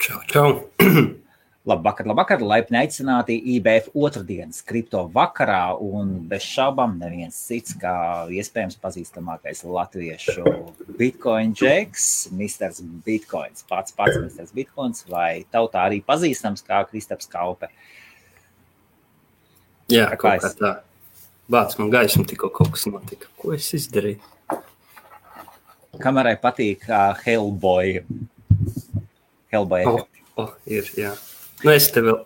Čau, čau. Labvakar, laipni aicināti IBF otrdienas kripto vakarā, un bez šaubām neviens cits kā iespējams pazīstamākais latviešu Bitcoin džeks, Mr. Bitcoins, pats Mr. Bitcoins, vai tautā arī pazīstams kā Kristaps Kaupe. Jā, kaut kā tā. Bāc, man gaismu tikko kaut kas notika. Ko es izdarīju? Kamerai patīk Hellboy efekti. Ir, jā. Nu, es te vēl...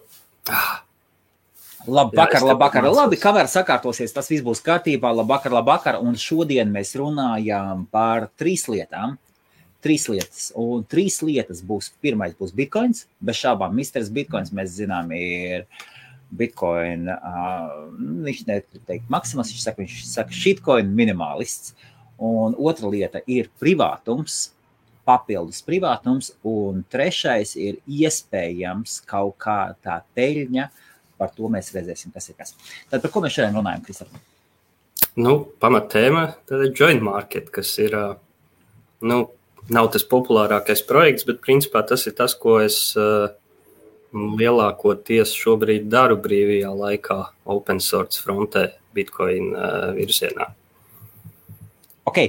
Labvakar. Labi, kamera sakārtosies, tas viss būs kārtībā. Labvakar. Un šodien mēs runājām par 3 lietām. 3 lietas. Un 3 lietas būs. Pirmais būs Bitcoins. Bez šābām, Mr. Bitcoins, mēs zinām, ir Bitcoin, viņš neteikt maksimas, viņš saka shitcoin minimalists. Un otra lieta ir privātums. Papildus privātums, un trešais ir iespējams kaut kā tā peļņa, par to mēs redzēsim, kas ir kas. Tad par ko mēs šodien runājam, Kristap? Nu, pamatēma, tad joint market, kas ir, nav tas populārākais projekts, bet principā tas ir tas, ko es lielākoties šobrīd daru brīvajā laikā open source frontē Bitcoin virzienā. Ok,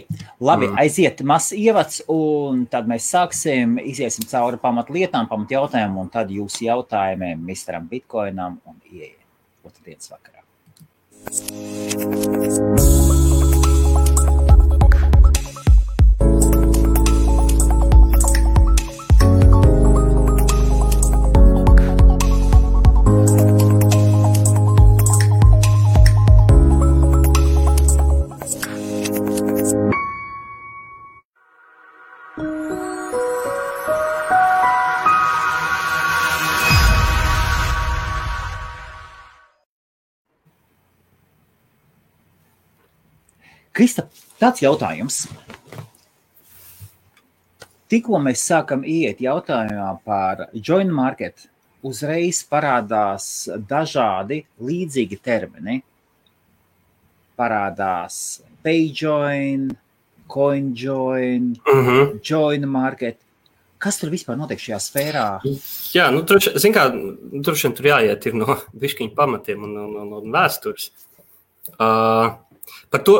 labi, aiziet mazs ievads, un tad mēs iziesim cauri pamatlietām, pamatjautājumiem, un tad jūs jautājumiem Mr. Bitcoinam un ieiet otrdienas vakarā. Kristap, tāds jautājums. Tikko mēs sākam iet jautājumā par joint market, uzreiz parādās dažādi līdzīgi termini. Parādās payjoin, coinjoin, joint market. Kas tur vispār notiek šajā sfērā? Jā, droši vien tur jāiet ir no bišķiņu pamatiem un vēstures. Par to,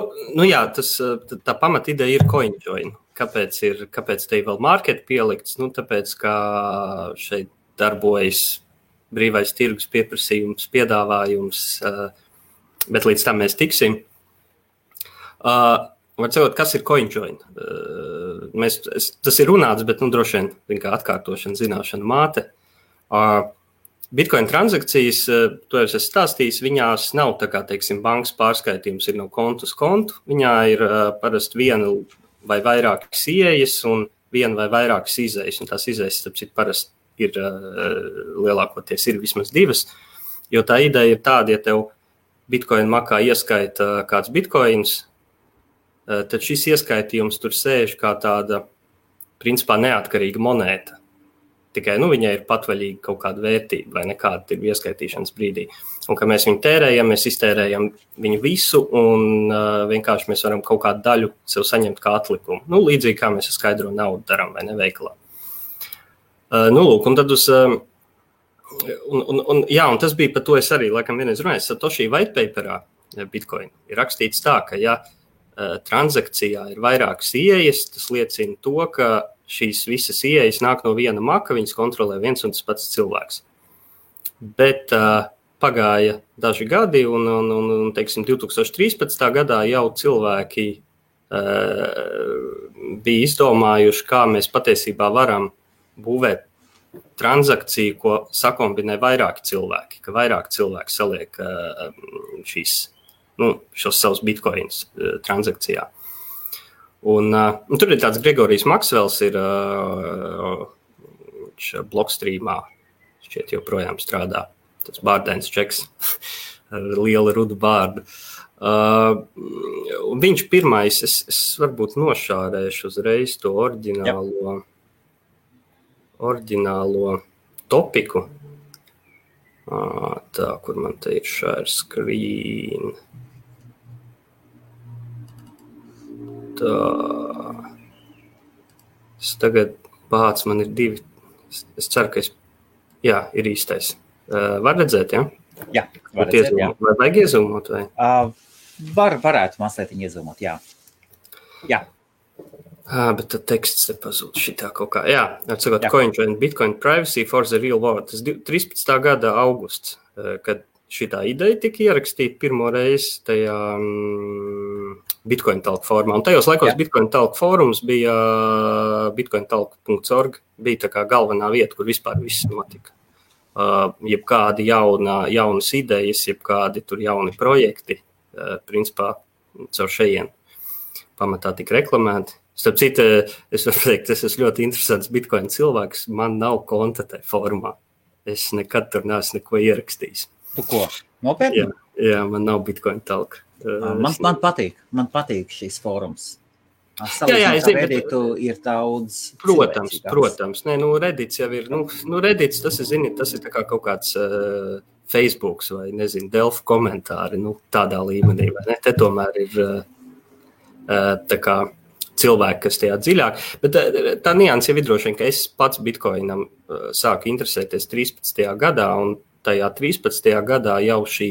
tā pamata ideja ir CoinJoin. Kāpēc te ir vēl market pielikts? Tāpēc, ka šeit darbojas brīvais tirgus pieprasījums, piedāvājums, bet līdz tam mēs tiksim. Var sakot, kas ir CoinJoin? Tas ir runāts, bet droši vien kā atkārtošana, zināšana māte. Bitcoin transakcijas, to jau es stāstījis, viņās nav tā kā, teiksim, bankas pārskaitījums ir no kontu uz kontu. Viņā ir parasti viena vai vairākas ieejas un viena vai vairākas izejas. Un tās izejas, tāpēc parasti ir lielākoties ir vismaz 2. Jo tā ideja ir tāda, ja tev Bitcoin makā ieskaita kāds Bitcoins, tad šis ieskaitījums tur sēž kā tāda, principā, neatkarīga monēta. Tikai viņai ir patvaļīga kaut kāda vērtība vai nekāda ir ieskaitīšanas brīdī. Un, ka mēs viņu tērējam, mēs iztērējam viņu visu un vienkārši mēs varam kaut kādu daļu sev saņemt kā atlikumu. Līdzīgi kā mēs ar skaidro naudu darām vai neveikalā. Un tad un tas bija par to es arī, laikam vienreiz runāju, Satoshi white paperā Bitcoin ir rakstīts tā, ka ja transakcijā ir vairākas ieejas, tas liecina to, ka šīs visas ieejas nāk no viena maka, viņas kontrolē viens un tas pats cilvēks. Bet pagāja daži gadi un teiksim, 2013. gadā jau cilvēki bija izdomājuši, kā mēs patiesībā varam būvēt transakciju, ko sakombinē vairāki cilvēki, ka vairāk cilvēki saliek šos savus bitcoins transakcijā. Un tur ir tāds Gregorijs Maksvels, ir Blockstreamā, šķiet joprojām strādā, tas bārdains čeks ar lielu rudu bārdu. Viņš pirmais, es varbūt nošārēšu uzreiz to oriģinālo topiku. Tā, kur man te ir share screen. Tā. Es tagad man ir 2 Es ceru, ka ir īstais. Var redzēt, ja? Jā, var redzēt, jā. Vai vajag iezūmot? Vai? Varētu mazliet iezūmot, jā. Jā. Bet tad teksts te pazūd šitā kaut kā. Jā, atsakot, CoinJoin Bitcoin Privacy for the Real World. Tas 13. gada augusts, kad šitā ideja tika ierakstīta pirmo reizi tajā Bitcoin Talk formā. Un tajos laikos Bitcoin Talk fórums bija bitcointalk.org, bija tā kā galvenā vieta, kur vispār viss notika. Jebkādi jaunas idejas, jebkādi tur jauni projekti, principā caur šejien pamatā tika reklamēti. Starp citu, es varu teikt, es esmu ļoti interesants Bitcoin cilvēks, man nav konta tajā formā. Es nekad tur neesmu neko ierakstījis. Tu ko? Nopietni? Jā, man nav Bitcoin Talk. Man patīk šīs fórums. Jā, es zinu, Reddit ir daudz. Protams. Nē, Reddits jau ir, Reddits, tas ir tā kā kaut kāds Facebooks vai, nezinu, Delfu komentāri, tādā līmenī, vai ne? Te tomēr ir tā kā cilvēki, kas tajā dziļāk. Bet tā nianse jau ir droši vien, ka es pats Bitcoinam sāku interesēties 13. gadā, un tajā 13. gadā jau šī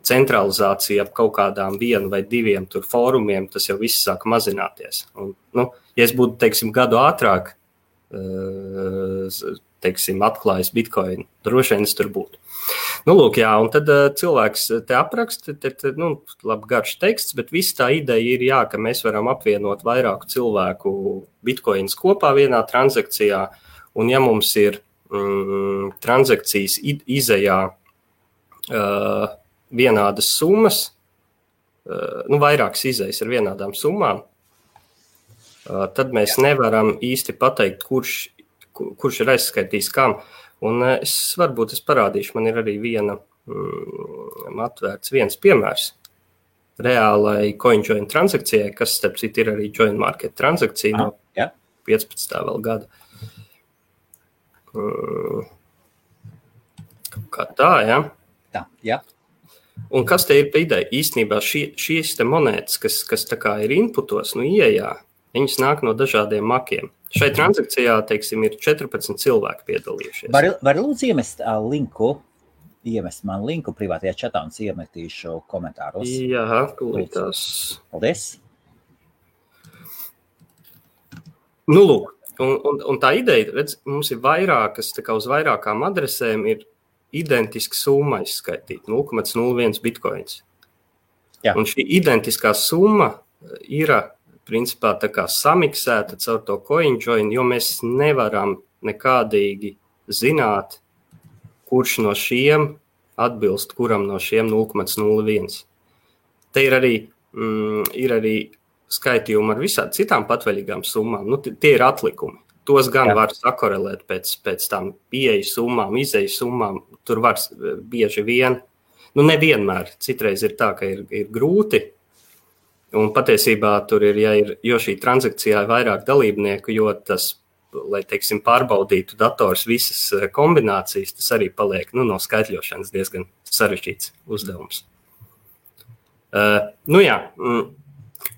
centralizācija ap kaut kādām 1 vai 2 tur fórumiem, tas jau viss sāk mazināties. Un, ja es būtu, teiksim, gadu ātrāk, teiksim, atklājis Bitcoin, droši vien es tur būtu. Lūk, jā, un tad cilvēks te apraksta, labi garš teksts, bet viss tā ideja ir, ka mēs varam apvienot vairāku cilvēku Bitcoins kopā vienā transakcijā, un ja mums ir transakcijas izejā vienādas summas, vairākas izejas ar vienādām summām, tad mēs nevaram īsti pateikt, kurš ir aizskaitījis kam. Un es parādīšu, man ir arī atvērts viens piemērs reālai CoinJoin transakcijai, kas, starp citu, ir arī Join Market transakcija no 15. vēl gada. Kā tā, ja? Tā, jā. Un kas te ir pa ideja? Īstenībā šīs te monētas, kas tā kā ir inputos, ieejā, viņas nāk no dažādiem makiem. Šai transakcijā, teiksim, ir 14 cilvēki piedalījušies. Var lūdzu iemest man linku privātajā čatā un iemetīšu komentāros. Jā, tūlītās. Paldies. Lūk. Un tā ideja, redz, mums ir vairākas, tā kā uz vairākām adresēm ir identiska summa izskaitīt, 0,01 bitcoins. Jā. Un šī identiskā summa ir, principā, tā kā samiksēta caur to CoinJoin, jo mēs nevaram nekādīgi zināt, kurš no šiem atbilst kuram no šiem 0,01. Te ir arī skaitījumi ar visām citām patvaļīgām summām. Tie ir atlikumi. Tos gan var sakorelēt pēc tām pieejas summām, izejas summām. Tur var bieži vien, nevienmēr. Citreiz ir tā, ka ir grūti. Un patiesībā tur jo šī transakcijā ir vairāk dalībnieku, jo tas, lai, teiksim, pārbaudītu dators visas kombinācijas, tas arī paliek, no skaitļošanas diezgan sarežģīts uzdevums.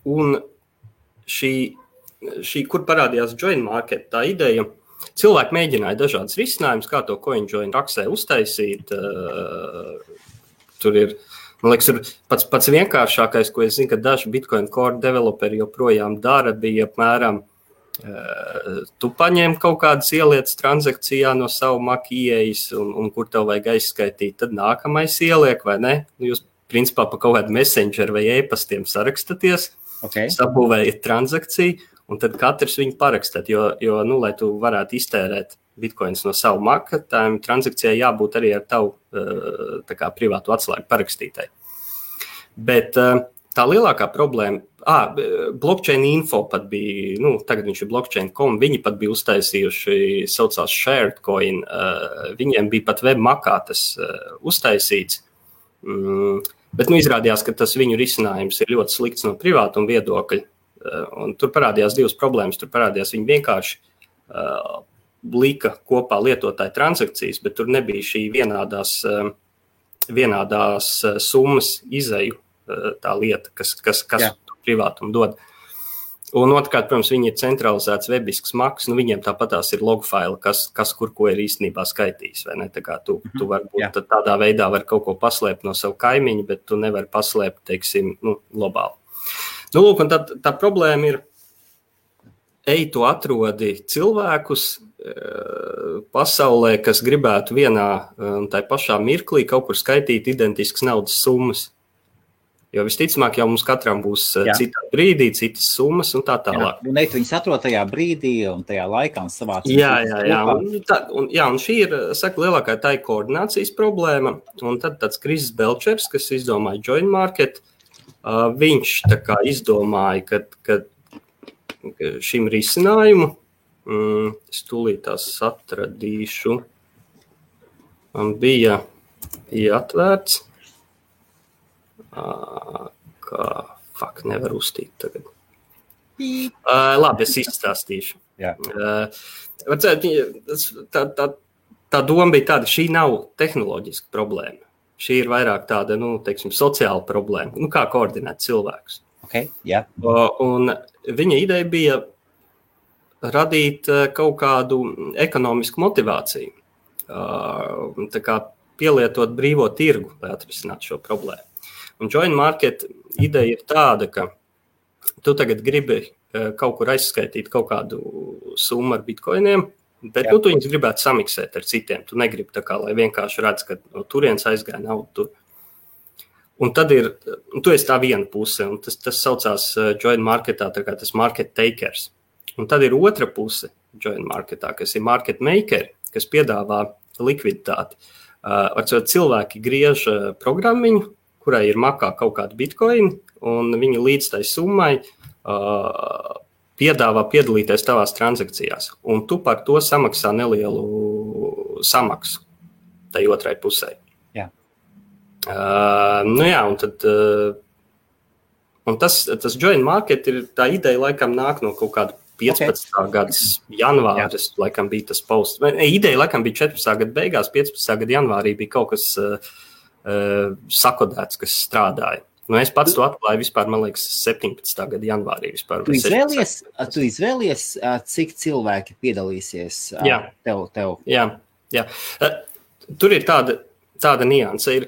Un šī, kur parādījās Join Market, tā ideja, cilvēki mēģināja dažādas risinājumus, kā to CoinJoin raksē uztaisīt. Tur ir, man liekas, pats vienkāršākais, ko es zinu, ka daži Bitcoin Core developeri joprojām dara, bija apmēram, tu paņem kaut kādas ielietas transakcijā no savu Mac ieejas, un kur tev vajag aizskaitīt, tad nākamais ieliek, vai ne? Jūs, principā, pa kaut kādu messenger vai e-pastiem sarakstaties, sabūvējat transakciju, un tad katrs viņu parakstāt, jo lai tu varētu iztērēt bitcoins no savu Maca, tām transakcijai jābūt arī ar tavu tā kā privātu atslēgu parakstītai. Bet tā lielākā problēma, blockchain info pat bija, tagad viņš ir blockchain.com, viņi pat bija uztaisījuši, saucās SharedCoin, viņiem bija pat webmakā tas uztaisīts, bet izrādījās, ka tas viņu risinājums ir ļoti slikts no privātuma viedokļa, un tur parādījās divas problēmas, tur parādījās viņi vienkārši lika kopā lietotāju transakcijas, bet tur nebija šī vienādās summas izeju tā lieta, kas privātumu dod. Un otrkārt, protams, viņi ir centralizēts webisks maks, viņiem tāpatās ir logfaili, kas kur ko ir īstenībā skaitījis, vai ne? Tā kā tu varbūt tādā veidā var kaut ko paslēpt no savu kaimiņu, bet tu nevari paslēpt, teiksim, globāli. Lūk, un tā problēma ir, tu atrodi cilvēkus pasaulē, kas gribētu vienā un tai pašā mirklī kaut kur skaitīt identiskas naudas summas. Jo visticamāk jau mums katram būs citā brīdī, citas summas un tā tālāk. Un viņas atrod tajā brīdī un tajā laikā un savāc. Jā. Un šī ir, lielākā tā ir koordinācijas problēma. Un tad tāds Kris Belčers, kas izdomāja Join Market, viņš tā kā izdomāja, ka šim risinājumu, es tūlīt tās atradīšu, man bija atvērts. Nevar uztīt tagad. Labi, es izstāstīšu. Tā doma bija tāda, šī nav tehnoloģiska problēma. Šī ir vairāk tāda, sociāla problēma. Kā koordinēt cilvēkus. Un viņa ideja bija radīt kaut kādu ekonomisku motivāciju. Tā kā pielietot brīvo tirgu, lai atrisinātu šo problēmu. Un Join Market ideja ir tāda, ka tu tagad gribi kaut kur aizskaitīt kaut kādu summu ar bitcoiniem, bet tu viņus gribētu samiksēt ar citiem. Tu negribi tā kā, lai vienkārši redz, ka no turienes aizgāja naudu tur. Un tad tu esi tā viena puse, un tas saucās Join Marketā, tā kā tas market takers. Un tad ir otra puse Join Marketā, kas ir market makeri, kas piedāvā likviditāti. Cilvēki griež programmiņu, kurai ir makā kaut kāda bitcoin, un viņi līdz tai summai piedāvā piedalīties tavās transakcijās. Un tu par to samaksā nelielu samaksu tai otrai pusē. Un tas Join Market ir tā ideja, laikam nāk no kaut kāda 15. gadas janvāris, laikam bija tas posts. Ideja, laikam, bija 14. gada beigās, 15. gada janvārī bija kaut kas sakodēts, kas strādāja. Es pats to atklāju vispār, man liekas, 17. gada janvārī vispār. Tu izvēlies, cik cilvēki piedalīsies tev? Jā. Tur ir tāda nianse. Ir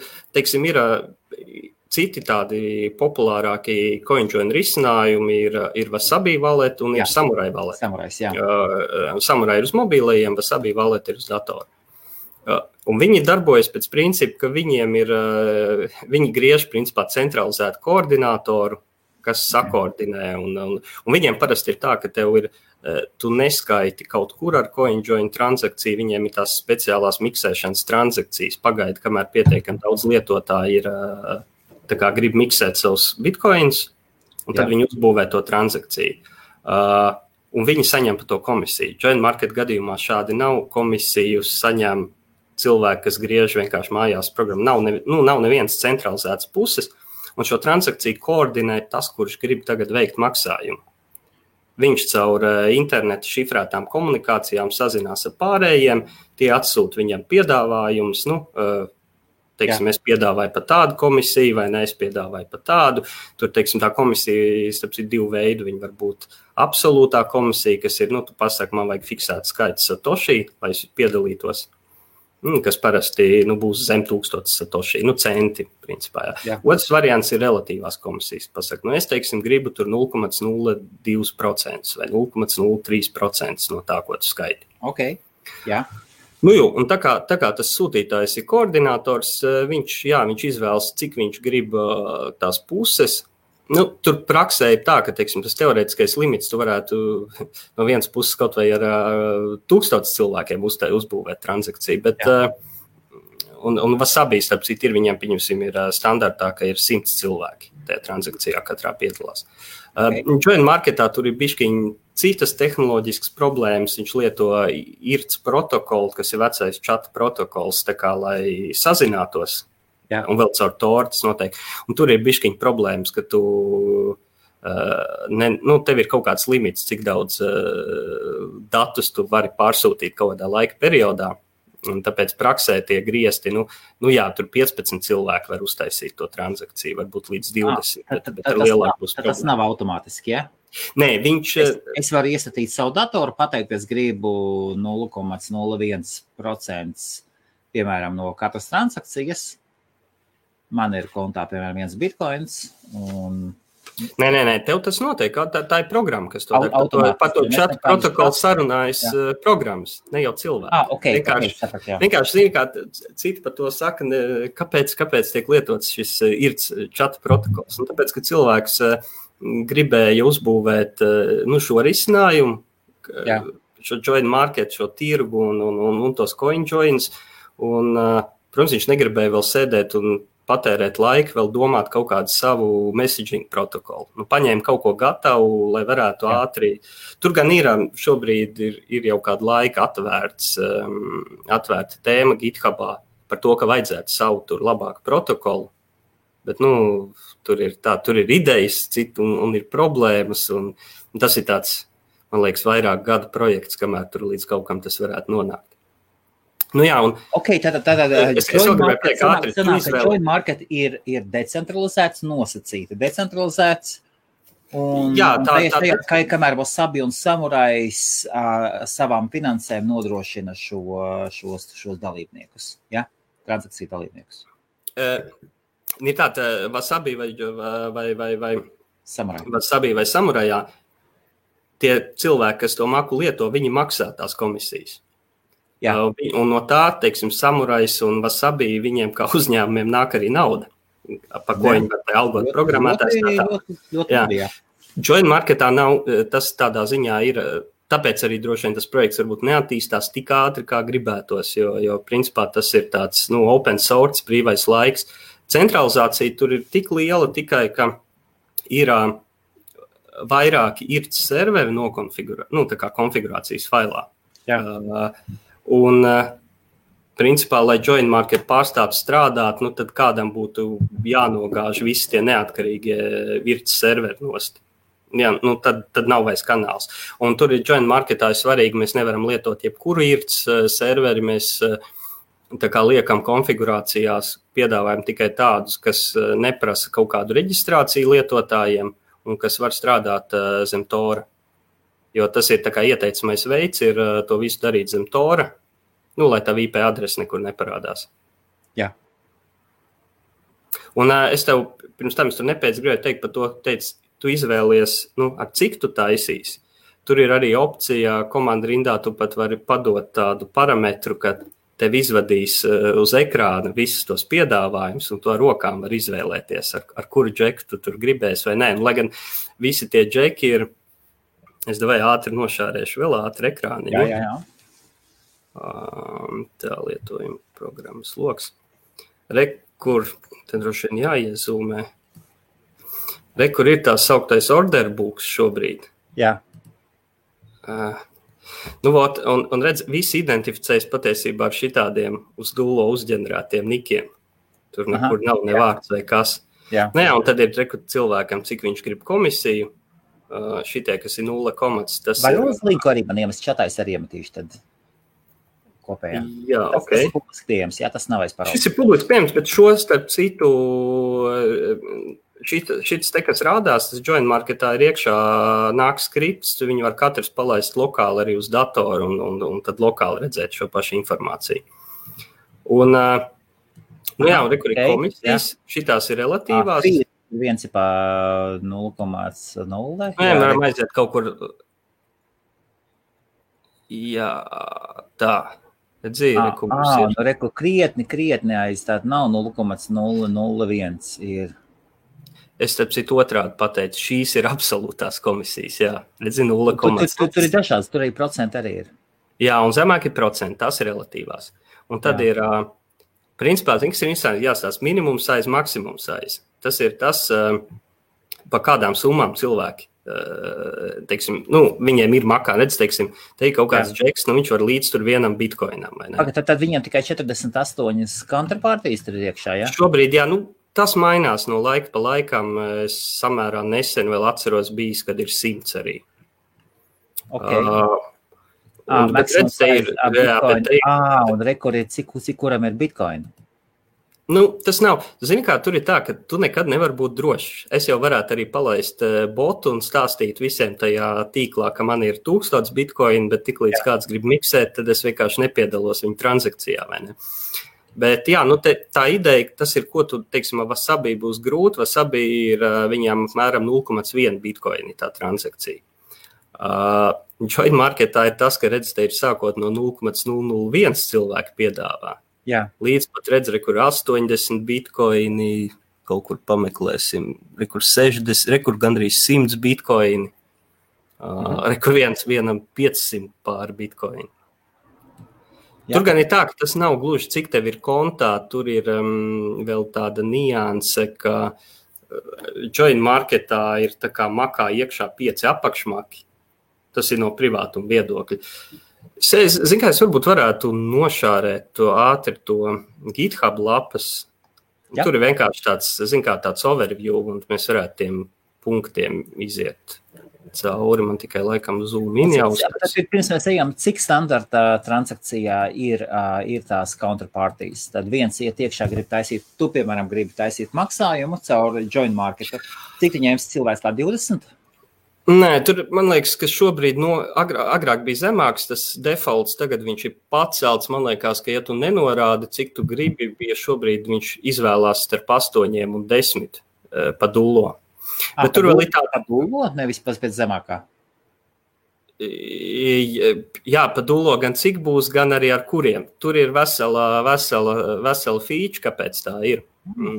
citi tādi populārākie CoinJoin risinājumi, ir Wasabi wallet un ir Samurai wallet. Samurai ir uz mobīlajiem, Wasabi wallet ir uz datoru. Un viņi darbojas pēc principa, ka viņi griež principā centralizētu koordinātoru, kas sakoordinē. Un viņiem parasti ir tā, ka tu neskaiti kaut kur ar CoinJoin transakciju, viņiem ir tās speciālās miksēšanas transakcijas. Pagaidi, kamēr pietiekami daudz lietotāji grib miksēt savus bitcoins, un tad viņi uzbūvē to transakciju. Un viņi saņem par to komisiju. Join Market gadījumā šādi nav komisiju saņem cilvēki, kas griež vienkārši mājās programmu. Nav nevienas centralizētas puses, un šo transakciju koordinē tas, kurš grib tagad veikt maksājumu. Viņš caur internetu šifrētām komunikācijām sazinās ar pārējiem, tie atsūta viņam piedāvājumus, es piedāvāju par tādu komisiju, vai ne, es piedāvāju par tādu. Tur, tā komisija, starp citu, divu veidu. Viņa var būt absolūtā komisija, kas ir, tu pasaki, man vajag fiksēt skaits satoshi, lai es piedalītos. Kas parasti būs zem 1000 satoshi, centi, principā. Otrs variants ir relatīvās komisijas. Pasaka, es, gribu tur 0,02% vai 0,03% no tā, ko tu skaiti. Un tā kā tas sūtītājs ir koordinators, viņš izvēlas, cik viņš grib tās puses. Tur praksē ir tā, ka tas teorētiskais limits tu varētu no vienas puses kaut vai ar 1000 cilvēkiem uzbūvēt transakciju, bet un Wasabi, starp citu, viņiem, pieņemsim, ir standartā, ka ir 100 cilvēki tajā transakcijā katrā piedalās. Join Marketā tur ir bišķiņ citas tehnoloģiskas problēmas, viņš lieto IRC protokolu, kas ir vecais čata protokols, tā kā, lai sazinātos. Un vēl caur tortas noteikti. Un tur ir bišķiņ problēmas, ka tev ir kaut kāds limits, cik daudz datus tu vari pārsūtīt kaut kādā laika periodā. Un tāpēc praksē tie griezti, tur 15 cilvēki var uztaisīt to transakciju, varbūt līdz 20. Tas nav automātiski, ja? Nē, viņš... Es varu iestatīt savu datoru, pateikt, es gribu 0,01%, piemēram, no katras transakcijas. Man ir kontā, piemēram, 1 bitcoins. Un... Nē, tev tas notiek. Tā ir programma, kas to dara. Par to čatu protokolu sarunājas programmas, ne jau cilvēki. Vienkārši zini, kā citi par to saka, kāpēc tiek lietots šis IRC čatu protokols. Un tāpēc, ka cilvēks gribēja uzbūvēt šo risinājumu, šo join market, šo tirgu un tos coin joins. Un, protams, viņš negribēja vēl sēdēt un patērēt laiku, vēl domāt kaut kādu savu messaging protokolu. Paņēma kaut ko gatavu, lai varētu ātri. Tur gan šobrīd ir jau kādu laiku atvērta tēma GitHubā par to, ka vajadzētu savu tur labāku protokolu. Bet, tur ir idejas citu un ir problēmas, un tas ir tāds, man liekas, vairāk gada projekts, kamēr tur līdz kaut kam tas varētu nonākt. Join market ir decentralizēts, nosacīti, decentralizēts. Kamēr Wasabi un Samurais savām finansēm nodrošina šos dalībniekus, transakciju dalībniekus. Ir tāda Wasabi vai Samurajā, tie cilvēki, kas to maku lieto, viņi maksā tās komisijas. Un no tā, teiksim, Samurais un Wasabi, viņiem kā uzņēmumiem nāk arī nauda, par ko viņi var algot programmētājs. Join marketā nav, tas tādā ziņā ir, tāpēc arī droši vien tas projekts varbūt neattīstās tik ātri, kā gribētos, jo principā tas ir tāds, open source, brīvais laiks. Centralizācija tur ir tik liela tikai, ka ir vairāki IRC serveri tā kā konfigurācijas failā. Un, principā, lai join market pārstātu strādāt, tad kādam būtu jānogāž visi tie neatkarīgie IRC serveri nost. Tad nav vairs kanāls. Un tur ir join marketā svarīgi, mēs nevaram lietot jebkuru IRC serveri, mēs tā kā liekam konfigurācijās, piedāvājam tikai tādus, kas neprasa kaut kādu reģistrāciju lietotājiem un kas var strādāt zem Tora. Jo tas ir tā kā ieteicamais veids, ir to visu darīt zem Tora, lai tā IP adrese nekur neparādās. Jā. Un es tev, pirms tam es tur gribēju teikt par to, tu izvēlies, ar cik tu taisīsi. Tur ir arī opcija, komanda rindā tu pat vari padot tādu parametru, ka tev izvadīs uz ekrāna visus tos piedāvājumus, un to rokām var izvēlēties, ar kuru džeku tu tur gribēsi vai nē. Lai gan visi tie džeki ir, es davai ātri nošārēšu vēl ātri ekrāniņu. Jā. Tā lietojuma programmas loks. Kur, te droši vien jāiezūmē. Kur ir tā sauktais order books šobrīd. Jā. Un redz, visi identificējas patiesībā ar šitādiem uz dullo uzģenerētiem nikiem. Tur nekur nav ne vārds vai kas. Jā. Un tad ir cilvēkam, cik viņš grib komisiju. Šitie, kas ir 0 komats. Vai uz linku arī man iemest čatais arī iemetīšu tad kopējā? Jā, tas ir publiski pieejams, tas nav aizparauts. Šis ir publiski pieejams, bet šo starp citu, šis te, kas rādās, tas join marketā ir iekšā nāk skripts, viņi var katrs palaist lokāli arī uz datoru un tad lokāli redzēt šo pašu informāciju. Un, kur ir komisijas, šitās ir relatīvās. Viens ir pa 0,0. Varam aiziet kaut kur. Jā, tā. Reku krietni aiz tāda nav 0,001 ir. Es starp citu otrādi pateicu, šīs ir absolūtās komisijas, jā. Redzi, 0,0. Tur ir dažāds, tur arī procenti arī ir. Jā, un zemāk ir procenti, tās ir relatīvās. Un tad ir, principā, kas ir interesanti, jāstāsta minimum size, maksimum size. Tas ir tas, pa kādām summām cilvēki, teiksim, viņiem ir makā, redz, teiksim, te ir kaut kāds džeks, viņš var līdz tur vienam bitcoinam, vai ne? Tad viņam tikai 48 counterparties tur ir iekšā, jā? Šobrīd, jā, tas mainās no laika pa laikam, es samērā nesen vēl atceros bijis, kad ir 100 arī. Bet redz, te ir, un rekur ir, cik kuram ir bitcoin? Tas nav. Zini, kā tur ir tā, ka tu nekad nevar būt drošs. Es jau varētu arī palaist botu un stāstīt visiem tajā tīklā, ka man ir 1000 bitcoin, bet tiklīdz kāds grib miksēt, tad es vienkārši nepiedalos viņa transakcijā, vai ne? Bet jā, tā ideja, tas ir, ko tu, teiksim, Wasabi būs grūti. Wasabi ir viņām apmēram 0,1 bitcoin tā transakcija. Join marketā ir tas, ka redz, te ir sākot no 0,001 cilvēki piedāvā. Jā. Līdz pat redz, kur 80 bitcoini, kaut kur pameklēsim, kur 60, kur gandrīz 100 bitcoini, kur vienam 500 pār bitcoini. Jā. Tur gan ir tā, ka tas nav gluži, cik tev ir kontā, tur ir vēl tāda nianse, ka join marketā ir tā kā makā iekšā 5 apakšmaki. Tas ir no privātuma viedokļa. Zinu, kā es varbūt varētu nošārēt ātri to GitHub lapas. Jā. Tur ir vienkārši tāds overview, un mēs varētu tiem punktiem iziet cauri. Man tikai laikam zoom in jau. Tad pirms mēs ejam, cik standarta transakcijā ir tās counterparties? Tad viens iet iekšā grib taisīt, tu, piemēram, gribi taisīt maksājumu caur join marketu. Cik tu ņēmis cilvēks tā 20? Nē, tur, man liekas, ka šobrīd agrāk bija zemāks tas defaults, tagad viņš ir pacelts. Man liekas, ka ja tu nenorādi, cik tu gribi, ja šobrīd viņš izvēlās starp 8 un 10 pa dullo. Bet tur vēl ir tā dullo, nevis pēc zemākā? Jā, pa dullo gan cik būs, gan arī ar kuriem. Tur ir vesela feature, kāpēc tā ir.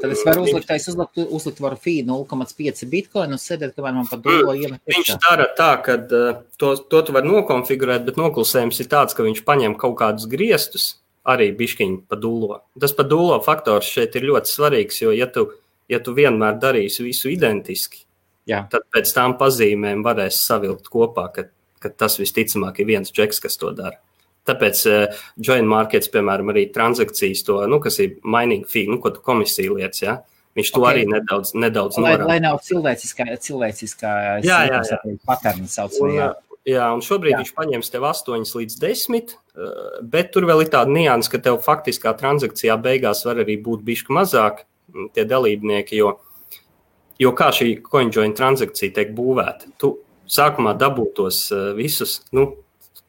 Tad es varu uzlikt varu fee 0,5 bitcoin un sēdēt, kamēr man pa dullo iemet. Viņš dara tā, ka to tu var nokonfigurēt, bet noklusējums ir tāds, ka viņš paņem kaut kādus griestus, arī biškiņi pa dullo. Tas pa dullo faktors šeit ir ļoti svarīgs, jo ja tu vienmēr darīsi visu identiski, tad pēc tām pazīmēm varēs savilkt kopā, ka tas visticamāk ir viens džeks, kas to dara. Tāpēc join markets, piemēram, arī transakcijas to, kas ir mining fee, ko tu komisija lietas, ja? Viņš to arī nedaudz norāda. Lai nav cilvēciskā paterni saucamajā. Jā, un šobrīd viņš paņems tev 8 līdz 10, bet tur vēl ir tāda nianse, ka tev faktiskā transakcijā beigās var arī būt bišķi mazāk tie dalībnieki, jo kā šī CoinJoin transakcija tiek būvēta. Tu sākumā dabūtos visus,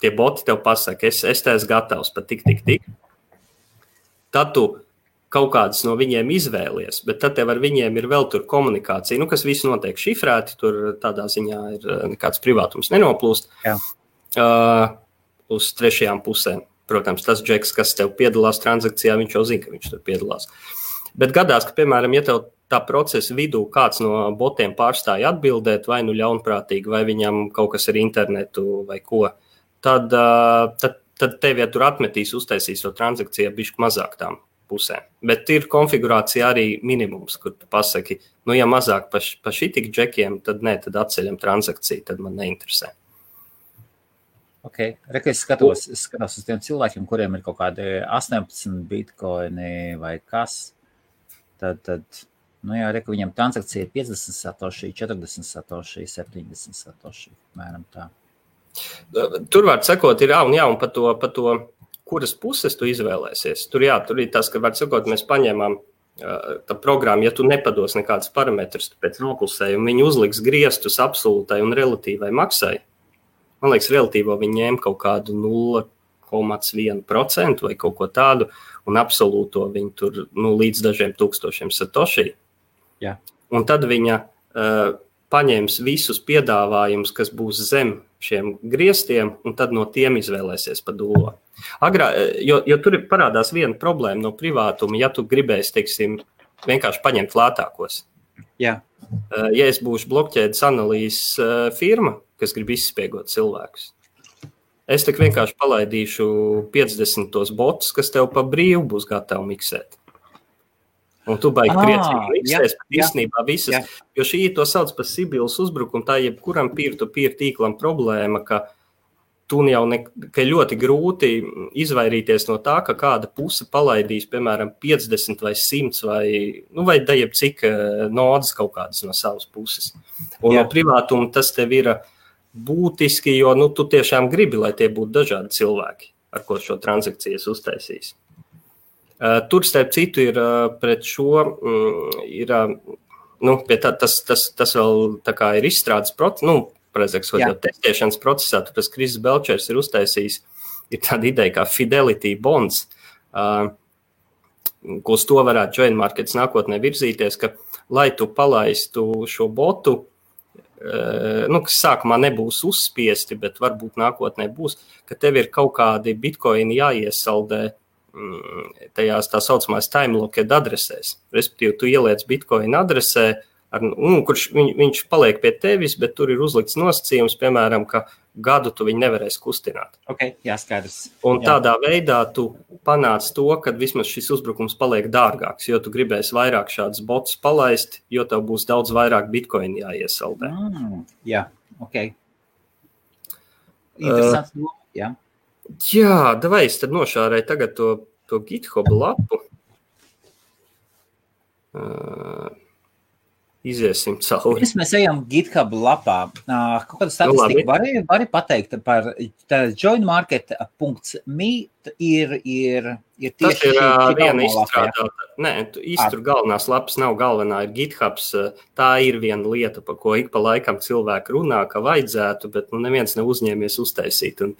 tie boti tev pasaka, es esmu gatavs pat tik. Tad tu kaut kādas no viņiem izvēlies, bet tad tev ar viņiem ir vēl tur komunikācija, kas viss notiek šifrēti, tur tādā ziņā ir nekāds privātums nenoplūst uz trešajām pusēm. Protams, tas džeks, kas tev piedalās transakcijā, viņš jau zina, ka viņš tur piedalās. Bet gadās, ka, piemēram, ja tev tā procesa vidū kāds no botiem pārstāja atbildēt, vai ļaunprātīgi, vai viņam kaut kas ar internetu vai ko, tad tev, ja tur atmetīs, uztaisīs to transakciju bišķi mazāk tām pusēm. Bet ir konfigurācija arī minimums, kur tu pasaki, ja mazāk pa šitik džekiem, tad atceļam transakciju, tad man neinteresē. Ok, es skatos uz tiem cilvēkiem, kuriem ir kaut kādi 18 bitcoini vai kas, tad viņam transakcija ir 50 satoshi, 40 satoshi, 70 satoshi, mēram tā. Tur var sekot, ir un pa to, kuras puses tu izvēlēsies. Tur ir tas, ka var sekot, mēs paņēmām tā programma, ja tu nepados nekādas parametrus pēc noklusējuma, viņi uzliks griestus absolūtai un relatīvai maksai. Man liekas, relatīvo viņi ņēma kaut kādu 0,1% vai kaut ko tādu, un absolūto viņi tur līdz dažiem tūkstošiem satoshi. Jā. Un tad viņa paņems visus piedāvājumus, kas būs zem šiem griestiem, un tad no tiem izvēlēsies pa dullo. Jo tur parādās viena problēma no privātuma, ja tu gribēsi, teiksim, vienkārši paņemt lētākos. Jā. Ja es būšu blokķēdes analīzes firma, kas grib izspiegot cilvēkus, es tik vienkārši palaidīšu 50 tos botus, kas tev pa brīvu būs gatavi miksēt. Un tu baigi priecīgi miksēs, bet īstenībā visas, jo šī to sauc par Sibilas uzbrukumu, tā jebkuram peer-to-peer tīklam problēma, ka tu jau ka ļoti grūti izvairīties no tā, ka kāda puse palaidīs, piemēram, 50 vai 100 vai dajab cik nodas kaut kādas no savas puses. Un no privātuma tas tev ir būtiski, jo tu tiešām gribi, lai tie būtu dažādi cilvēki, ar ko šo transakcijas uztaisīs. Tur, starp citu, ir pret šo, ir, tas vēl tā kā ir izstrādes process, jau testēšanas procesā, tāpēc Kris Belčers ir uztaisījis, ir tāda ideja kā Fidelity Bonds, ko uz to varētu Join Markets nākotnē virzīties, ka, lai tu palaistu šo botu, kas sākumā nebūs uzspiesti, bet varbūt nākotnē būs, ka tev ir kaut kādi bitcoini jāiesaldē tajās tā saucamās time-locked adresēs. Respektīvi, tu ieliec bitcoin adresē, kurš viņš paliek pie tevis, bet tur ir uzlikts nosacījums, piemēram, ka gadu tu viņu nevarēsi kustināt. Okay, jā, skaidrs. Un tādā veidā tu panāc to, ka vismaz šis uzbrukums paliek dārgāks, jo tu gribēsi vairāk šādus botus palaist, jo tev būs daudz vairāk bitcoini jāiesaldē. Jā, ok. Interesants, jā. Jā, davai es tad nošārēju tagad to GitHub lapu. Iziesim cauri. Pirms mēs ejam GitHub lapā. Kaut kādu statistiku vari pateikt par joinmarket.me ir tieši tas ir viena izstrādāta. Tur galvenās lapas nav galvenā, ir GitHubs. Tā ir viena lieta, par ko ik pa laikam cilvēki runā, ka vajadzētu, bet neviens nav uzņēmies uztaisīt. Un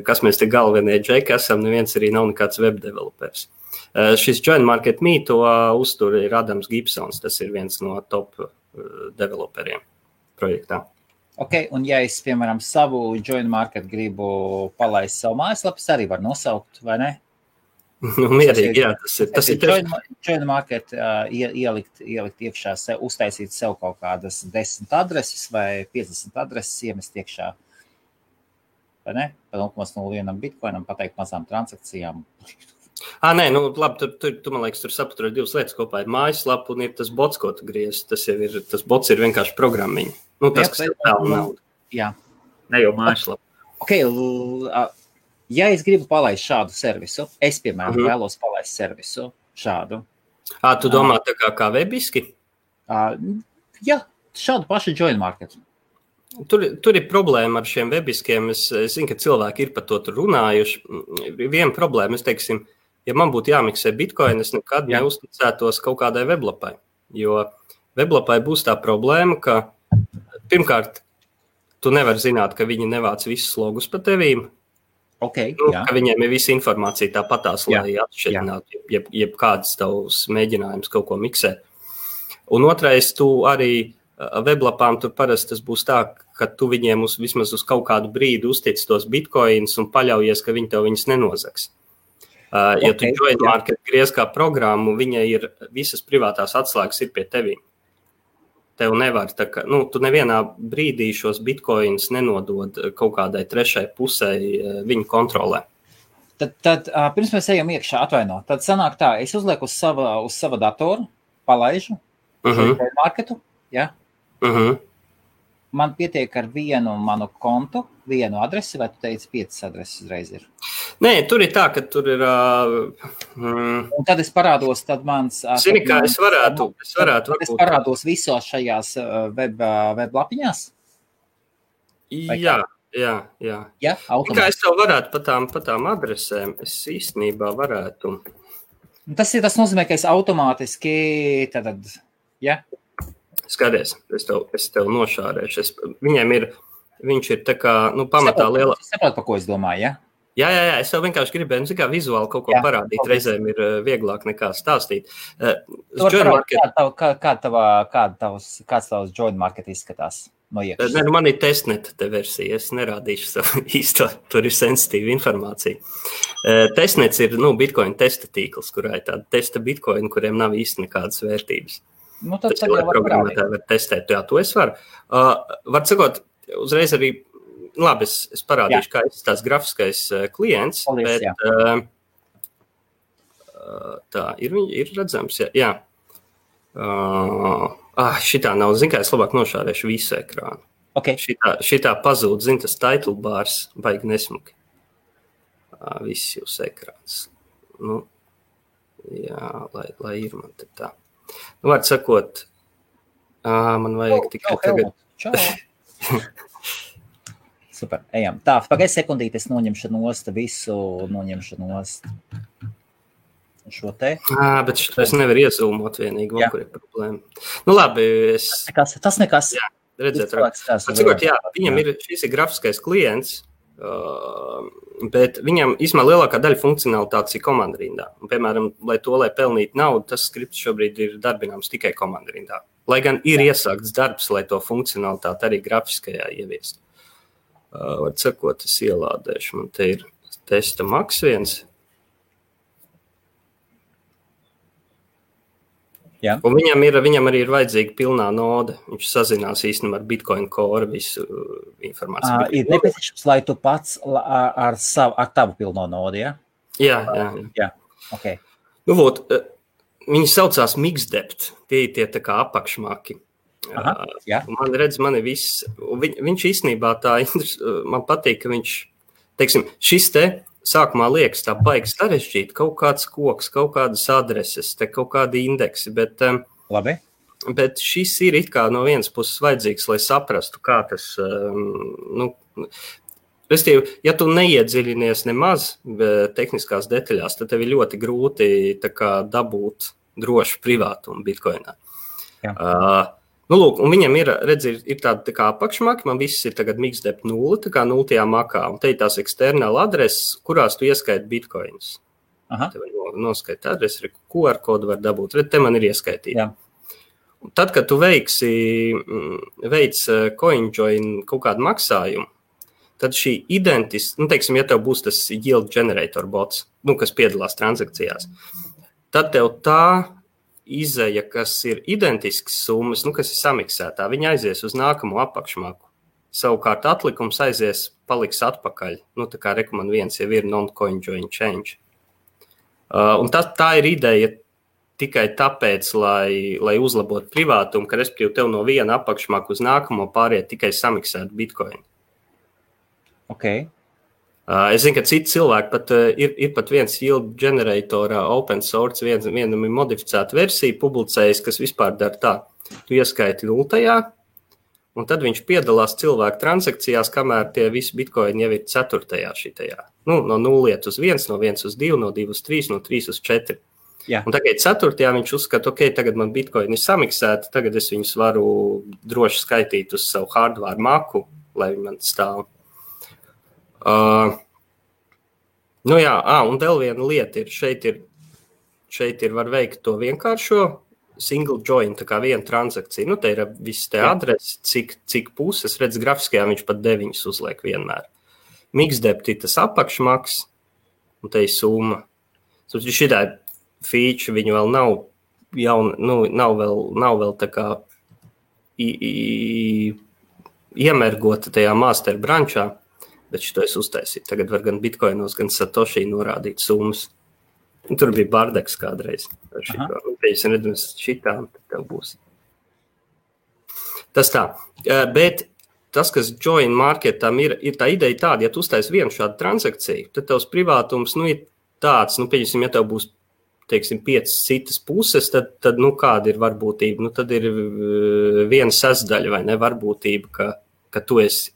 kas mēs te galvenie džeki esam, neviens arī nav nekāds web developers. Šis JoinMarket.me to uztur ir Adams Gibsons, tas ir viens no top developeriem projektā. Ok, un ja es, piemēram, savu JoinMarket gribu palaist savu mājaslapas, arī var nosaukt, vai ne? Mierīgi, jā, tas ir JoinMarket ielikt iekšā, uztaisīt sev kaut kādas 10 adreses vai 50 adreses, iemest iekšā, vai ne? Pa 0,01 bitcoinam pateikt mazām transakcijām. Nē, labi, tu man liekas, tur sapaturē divas lietas kopā. Ir mājaslapa un ir tas bots, ko tu griez. Tas bots ir vienkārši programmiņa. Tas, kas ir vēl nauda. Jā. Ne jau mājaslapa. Ok, ja es gribu palaist šādu servisu, es, piemēram, vēlos palaist servisu šādu. Tu domā tā kā webiski? Jā, šādu pašu JoinMarket. Tur ir problēma ar šiem webiskiem. Es zinu, ka cilvēki ir par to tur runājuši. Viena problēma, es teiksim, ja man būtu jāmiksē bitcoin, es nekad neuzticētos kaut kādai weblapai. Jo weblapai būs tā problēma, ka pirmkārt, tu nevari zināt, ka viņi nevāc visus logus pa tevīm. Okay, ka viņiem ir visa informācija tāpatās, lai atšķirinātu, jeb kāds tavs mēģinājums kaut ko miksēt. Un otrais, tu arī weblapām tur parasti tas būs tā, ka tu viņiem vismaz uz kaut kādu brīdi uztic tos bitcoins un paļaujies, ka viņi tev viņus nenozags. Ja tu JoinMarket griez kā programmu, viņa ir visas privātās atslēgas ir pie tevīm. Tev nevar, tu nevienā brīdī šos bitcoins nenodod kaut kādai trešai pusē viņu kontrolē. Tad pirms mēs ejam iekšā, atvaino, tad sanāk tā, es uzlieku uz sava datoru, palaižu JoinMarketu, ja? Man pietiek ar vienu manu kontu, vienu adresi, vai tu teici 5 adreses uzreiz ir? Nē, tur ir tā, ka tur ir... Un tad es parādos, tad mans... Zini, kā es varētu Tad es parādos visos šajās web lapiņās? Jā. Ja, kā es tev varētu pa tām adresēm, es īstenībā varētu... Tas nozīmē, ka es automātiski tad, ja? Skaties, es tev nošārēšu. Viņš ir tā kā, pamatā liela... Es saprotu, par ko es domāju, ja? Jā, es jau vienkārši gribēju, kā vizuāli kaut ko parādīt. Reizēm ir vieglāk nekā stāstīt. Kāds tavs JoinMarket izskatās no iekšas? Ne, man ir testnet te versija, es nerādīšu savu īsto, tur ir sensitīva informācija. Testnets ir, Bitcoin testa tīkls, kurā ir tāda testa Bitcoin, kuriem nav īsti nekādas vērtības. Tas jau var programmētāji var testēt, jā, to es varu. Var sakot, uzreiz arī, labi, es parādīšu, kā ir tās grafiskais klients, paldies, bet tā, ir redzams, jā. Šitā nav, zin kā, es labāk nošārēšu visu ekrānu. Okay. Šitā pazūd, zin, tas title bars, baigi nesmuki. Viss jūs ekrāns. Jā, lai ir man te tā. Var sakot, man vajag tikai tagad. Čau. Super, ejam. Tā, pagaid sekundīt, es noņemšu nost visu, šo te. Bet šo es nevaru iezūmot vienīgi, kur ir problēma. Nu labi, Tas nekas. Jā, redzēt, viņam šis ir grafiskais klients, bet viņam īstenībā lielākā daļa funkcionalitātes ir komandarindā. Un, piemēram, lai pelnītu naudu, tas skripts šobrīd ir darbināms tikai komandarindā. Lai gan ir iesākts darbs, lai to funkcionalitāti arī grafiskajā ieviest. Var sakot, es ielādēšu. Man te ir testa Max 1. Jā. Un viņam arī ir vajadzīga pilnā noda. Viņš sazinās īstenībā ar Bitcoin Core visu informāciju. Ir nepieciešams, lai tu pats ar tavu pilno nodu, ja? Jā. Okay. Nu, viņi saucās Mixdept. Tie tā kā apakšmaki. Man ir viss. Viņš īstenībā man patīk, ka viņš, teiksim, šis te sākumā liekas tā baigi sarežģīt, kaut kāds koks, kaut kādas adreses, kaut kādi indeksi, bet šis ir it kā no vienas puses vajadzīgs, lai saprastu, kā tas, restīvi, ja tu neiedziļinies nemaz tehniskās detaļās, tad tev ir ļoti grūti tā kā dabūt drošu privātumu Bitcoinā. Un viņam ir tāda tā kā apakšmaki, man viss ir tagad Mixdept 0, tā kā 0. makā, un te ir tās eksternāla adreses, kurās tu ieskaiti bitcoinus. Te var noskaiti adresi, QR kodu var dabūt, te man ir ieskaitīti. Tad, kad tu veic CoinJoin kaut kādu maksājumu, tad šī teiksim, ja tev būs tas yield generator bots, kas piedalās transakcijās, tad tev tā izeja, kas ir identisks summas, kas ir samiksētā, viņa aizies uz nākamo apakšmaku. Savukārt atlikums paliks atpakaļ. Tā kā rekomend 1 jau ir non-coin-join change. Un tā ir ideja tikai tāpēc, lai uzlabotu privātumu, ka respektīvi tev no viena apakšmaku uz nākamo pāriet tikai samiksēt Bitcoin. Okay. Es zinu, ka citi cilvēki pat ir pat viens yield generatorā open source, vienam ir modificēta versija publicējis, kas vispār dara tā. Tu ieskaiti 0, un tad viņš piedalās cilvēku transakcijās, kamēr tie visi bitcoini jau ir 4. šitajā. No 0 uz 1, no 1 uz 2, no 2 uz 3, no 3 uz 4. Jā. Un tagad 4. viņš uzskata, tagad man bitcoini ir samiksēti, tagad es viņus varu droši skaitīt uz savu hardware maku, lai viņi man stāv. Un vēl viena lieta ir, šeit ir var veikt to vienkāršo single join, tā kā viena transakcija. Te ir viss te adresi, cik puses, redz grafiskajā viņš pat 9 uzliek vienmēr. Mixdept ir tas apakšmaks, un te ir summa. Šitā feature viņu vēl nav nav vēl tā kā iemergota tajā master brančā. Bet šito es uztaisīju. Tagad var gan bitcoinos, gan satoshi norādīt summas. Un tur bija bardeks kādreiz. Es redzams šitām, tad tev būs. Tas tā. Bet tas, kas join marketam ir tā ideja tāda, ja tu uztais vienu šādu transakciju, tad tavs privātums ir tāds, pieņemsim, ja tev būs, teiksim, 5 citas puses, tad kāda ir varbūtība? Tad ir 1/6, vai ne, varbūtība, ka tu esi,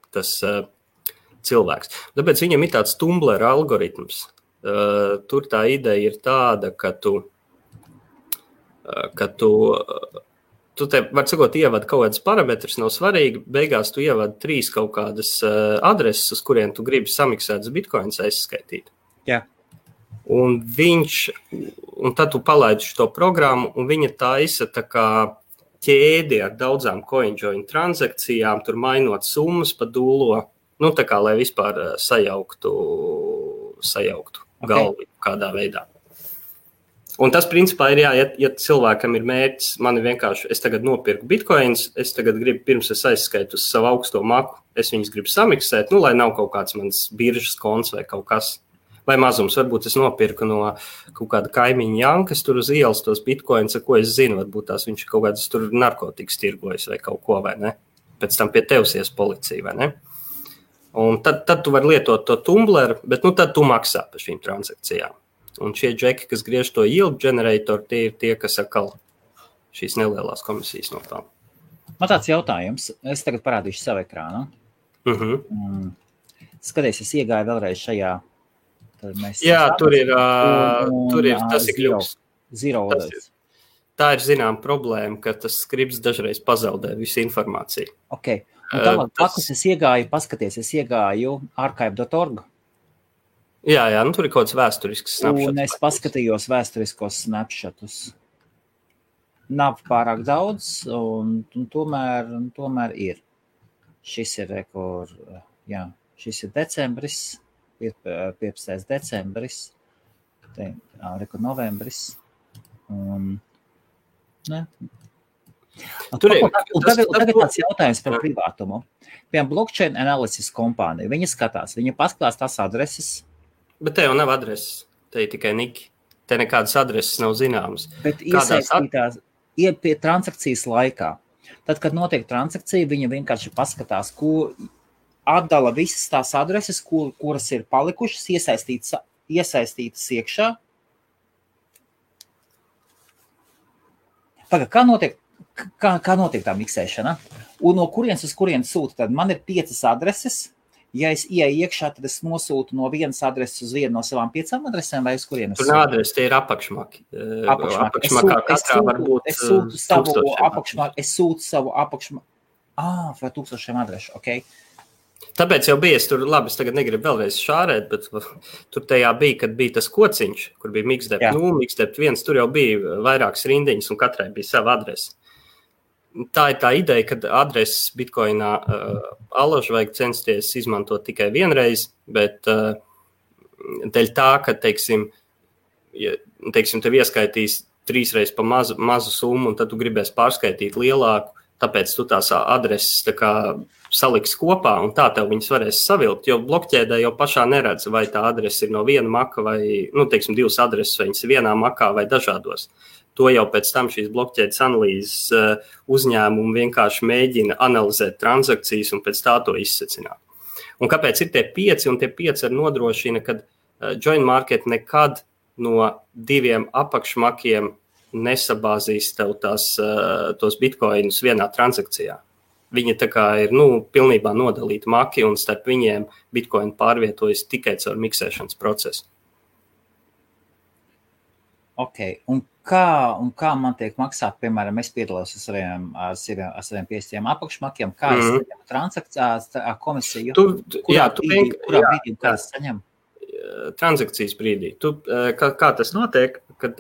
tas cilvēks. Tāpēc viņam ir tāds Tumblr algoritms. Tur tā ideja ir tāda, ka tu te, var sakot, ievad kaut kādas parametrus, nav svarīgi, beigās tu ievad 3 kaut kādas adreses, uz kuriem tu gribi samiksētas bitcoins aizskaitīt. Jā. Un tad tu palaidi šo programmu, un viņa taisa tā kā ķēdi ar daudzām CoinJoin transakcijām, tur mainot summas pa dūlo, tā kā, lai vispār sajauktu galvu kādā veidā. Un tas, principā, ir ja cilvēkam ir mērķis, man ir vienkārši, es tagad nopirku bitcoins, es tagad gribu, pirms es aizskaitu uz savu augsto maku, es viņus gribu samiksēt, lai nav kaut kāds mans biržas konts vai kaut kas. Vai mazums, varbūt es nopirku no kaut kāda kaimiņa Jankas tur uz ielas tos bitcoins, ko es zinu, varbūt tās viņš kaut kādas tur narkotikas tirgojas vai kaut ko, vai ne? Pēc tam pie tevs ies policija, vai ne? Un tad tu vari lietot to Tumblr, bet tad tu maksā par šīm transakcijām. Un šie džeki, kas griež to yield generator, tie ir tie, kas atkal šīs nelielās komisijas nopelna. Man tāds jautājums, es tagad parādīšu savu ekrānu. Skaties, es iegāju vēlreiz šajā tur ir tas ir kļūst. Zero orders. Tā ir zinām problēma, ka tas skripts dažreiz pazaudē visu informāciju. Ok. Un tālāk pakus es iegāju archive.org. Jā, tur ir kaut kāds vēsturisks snapshots. Un es paskatījos vēsturiskos snapshotus. Nav pārāk daudz, un tomēr ir. Šis ir šis ir decembris, 15. decembris, novembris. Tagad tāds jautājums par privātumu. Piemēram, blockchain analysis kompānija, viņa skatās, viņa pasklās tās adreses. Bet te jau nav adreses, te ir tikai niki. Te nekādas adreses nav zināmas. Bet iesaistītās pie transakcijas laikā. Tad, kad notiek transakcija, viņa vienkārši paskatās, ko atdala visas tās adreses, kuras ir palikušas, iesaistītas iekšā. Kā notiek tā miksēšana? Un no kurienes uz kurienes sūta? Tad man ir 5 adreses. Ja es ieeju iekšā, tad es nosūtu no vienas adreses uz vienu no savām 5 adresēm vai uz kurienes? Tur nav adresi, tie ir apakšmaki. Apakšmakā katrā var būt es sūtu savu apakšmaku. Vai 1000 adrešu, ok. Tāpēc jau bija, es tagad negribu vēlreiz šārēt, bet tur tajā bija, kad bija tas kociņš, kur bija mixdep 0, mixdep 1, tur jau bija vairākas rindiņas un katrai bija sava adrese. Tā ir tā ideja, ka adreses Bitcoinā alaži vajag censties izmantot tikai vienreiz, bet dēļ tā, ka, teiksim, tev ieskaitīs 3 reizes pa mazu summu, un tad tu gribēsi pārskaitīt lielāku, tāpēc tu tās adreses tā kā saliks kopā, un tā tev viņas varēs savilkt, jo blokķēdē jau pašā neredz, vai tā adrese ir no viena maka vai, 2 adreses, vai viņas ir vienā makā vai dažādos. To jau pēc tam šīs blokķēdes analīzes uzņēmumi vienkārši mēģina analizēt transakcijas un pēc tā to izsecināt. Un kāpēc ir tie 5, un tie 5 arī nodrošina, ka Join Market nekad no 2 apakšmakiem nesabāzīs tev tos bitcoinus vienā transakcijā. Viņi tā kā ir pilnībā nodalīti maki, un starp viņiem bitcoin pārvietojas tikai caur miksēšanas procesu. Ok, un kā man tiek maksāt, piemēram, es piedalos ar saviem 5 apakšmakiem, kā es saņemu transakcijas komisiju? Kurā brīdī es saņemu? Transakcijas brīdī. Kā tas notiek, kad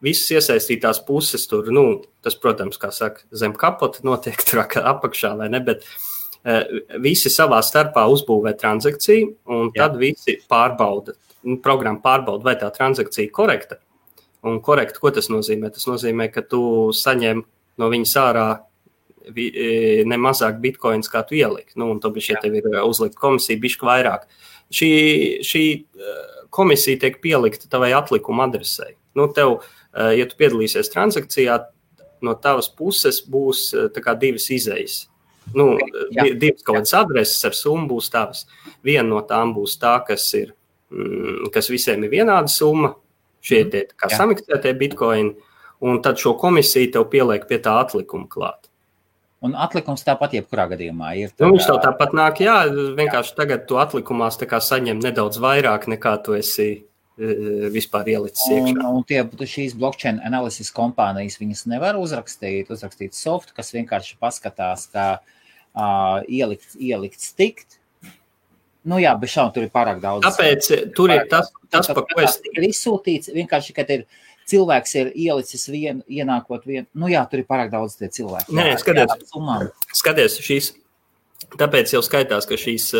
visas iesaistītās puses tur, tas, protams, kā saka, zem kapota notiek tur apakšā vai ne, bet visi savā starpā uzbūvē transakciju, un tad visi programma pārbauda, vai tā transakcija korekta. Un korekti, ko tas nozīmē? Tas nozīmē, ka tu saņem no viņas ārā ne mazāk bitcoins, kā tu ieliki. Un tāpēc, ja tev ir uzlikt komisija, bišķi vairāk. Šī komisija tiek pielikta tavai atlikuma adresei. Tev, ja tu piedalīsies transakcijā, no tavas puses būs tā kā 2 izejas. 2 kaut kādas adreses ar summu būs tavas. Viena no tām būs tā, kas visiem ir vienāda summa. Šie tie kā samiksētie bitcoini, un tad šo komisiju tev pieliek pie tā atlikuma klāt. Un atlikums tāpat jebkurā gadījumā ir? Viņš tev tāpat nāk, vienkārši tagad tu atlikumās tā kā saņem nedaudz vairāk, nekā tu esi vispār ielicis iekšā. Un šīs blockchain analysis kompānijas, viņas nevar uzrakstīt softu, kas vienkārši paskatās, kā ielikt stikt. Bet šādi tur ir pārāk daudz. Tāpēc tur ir tas par ko es... Ir izsūtīts, vienkārši, kad cilvēks ir ielicis ienākot vienu. Tur ir pārāk daudz tie cilvēki. Skaties šīs. Tāpēc jau skaitās, ka šīs...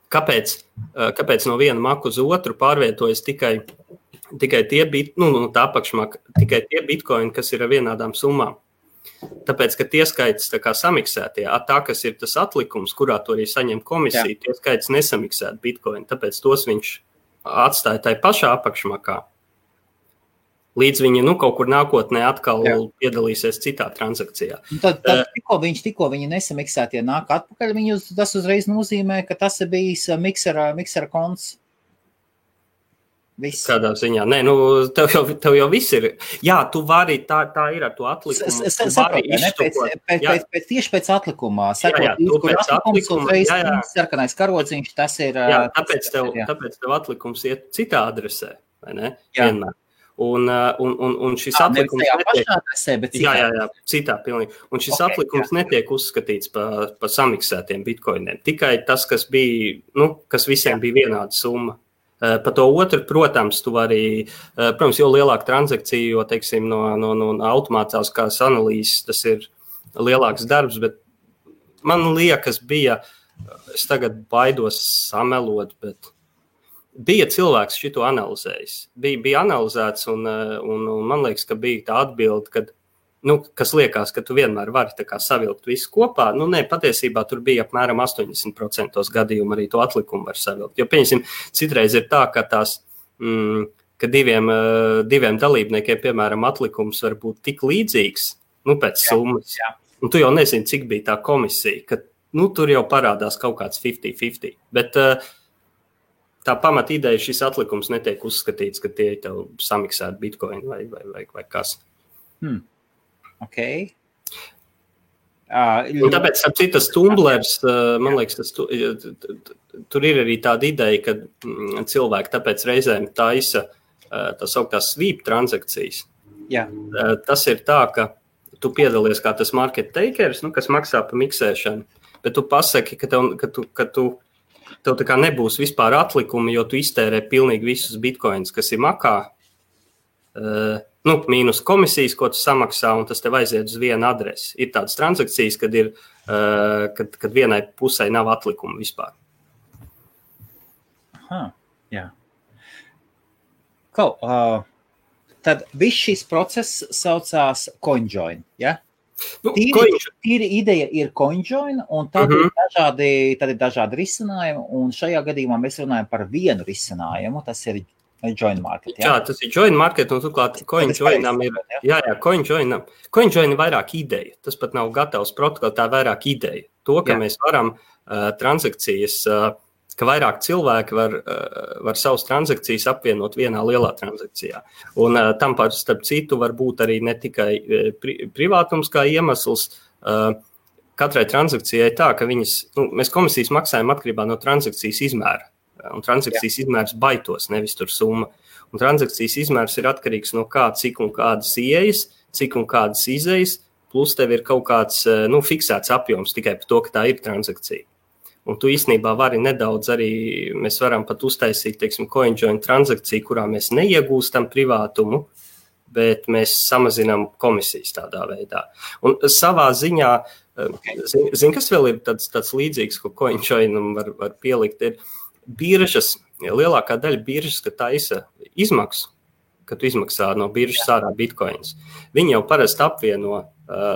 Kāpēc no viena maku uz otru pārvietojas tikai tie tā apakšmaka, tikai tie bitcoini, kas ir ar vienādām summām. Tāpēc, ka tie skaits tā kā samiksētie, tā, kas ir tas atlikums, kurā to arī saņem komisija, tie skaits nesamiksēt bitcoin, tāpēc tos viņš atstāja tai pašā apakšmakā. Līdz viņi kaut kur nākotnē atkal piedalīsies citā transakcijā. Tad tikko viņi nesamiksētie nāk atpakaļ, tas uzreiz nozīmē, ka tas ir bijis miksera konts. Viss. Kādā ziņā? Nē, nu, tev jau viss ir. Jā, tu vari, tā ir ar to atlikumu. Tieši pēc atlikumā. Sarkanais karodziņš, tas ir... Jā, tāpēc tev atlikums iet citā adresē, vai ne? Vienmēr. Un šis atlikums citā pilnīgi. Un šis atlikums netiek uzskatīts par samiksētiem bitkoiniem. Tikai tas, kas bija, kas visiem bija vienāda summa. Pa to otru, protams, tu vari, protams, jo lielāka transakcija, jo, teiksim, no automātiskās analīzes tas ir lielāks darbs, bet man liekas es tagad baidos samelot, bet bija cilvēks šito analizējis. Bija analizēts un man liekas, ka bija tā atbilde, kad, kas liekas, ka tu vienmēr vari tā kā savilkt visu kopā. Nē, patiesībā tur bija apmēram 80% gadījumu arī to atlikumu var savilkt. Jo, pieņemsim, citreiz ir tā, ka ka diviem dalībniekiem, piemēram, atlikums var būt tik līdzīgs, pēc summas. Un tu jau nezini, cik bija tā komisija, ka, tur jau parādās kaut kāds 50-50. Bet tā pamat ideja šis atlikums netiek uzskatīts, ka tie ir tev samiksēti bitcoin vai kas. Okay. Un tāpēc, ap citas tumblers, man liekas, tur ir arī tāda ideja, ka cilvēki tāpēc reizēm taisa tā sauktās sweep transakcijas. Jā. Tas ir tā, ka tu piedalies kā tas market takers, kas maksā pa miksēšanu, bet tu pasaki, ka tev tā kā nebūs vispār atlikumi, jo tu iztērē pilnīgi visus bitcoins, kas ir makā. Mīnus komisijas, ko tu samaksā, un tas tev aiziet uz vienu adresi. Ir tādas transakcijas, kad vienai pusē nav atlikuma vispār. Aha, jā. Tad viss šis process saucās CoinJoin, ja? Tīri ideja ir CoinJoin, un tad ir dažādi risinājumi, un šajā gadījumā mēs runājam par vienu risinājumu, tas ir Join Market, jā? Jā, tas ir Join Market, un turklāt CoinJoinam ir, CoinJoin ir vairāk ideja. Tas pat nav gatavs protokols, tā ir vairāk ideja. To, ka mēs varam transakcijas, ka vairāk cilvēki var savas transakcijas apvienot vienā lielā transakcijā. Un tam starp citu var būt arī ne tikai privātums kā iemesls. Katrai transakcijai tā, ka mēs komisijas maksājam atkarībā no transakcijas izmēra. Un transakcijas izmērs baitos, nevis tur summa. Un transakcijas izmērs ir atkarīgs no kā, cik un kādas ieejas, cik un kādas izejas, plus tev ir kaut kāds fiksēts apjoms tikai par to, ka tā ir transakcija. Un tu īstenībā vari nedaudz arī, mēs varam pat uztaisīt, teiksim, CoinJoin transakciju, kurā mēs neiegūstam privātumu, bet mēs samazinām komisijas tādā veidā. Un savā ziņā, kas vēl ir tāds līdzīgs, ko CoinJoinam var pielikt, ir biržas, lielākā daļa biržas, ka taisa izmaksu, ka tu izmaksā no biržas ārā bitcoins. Viņi jau parasti apvieno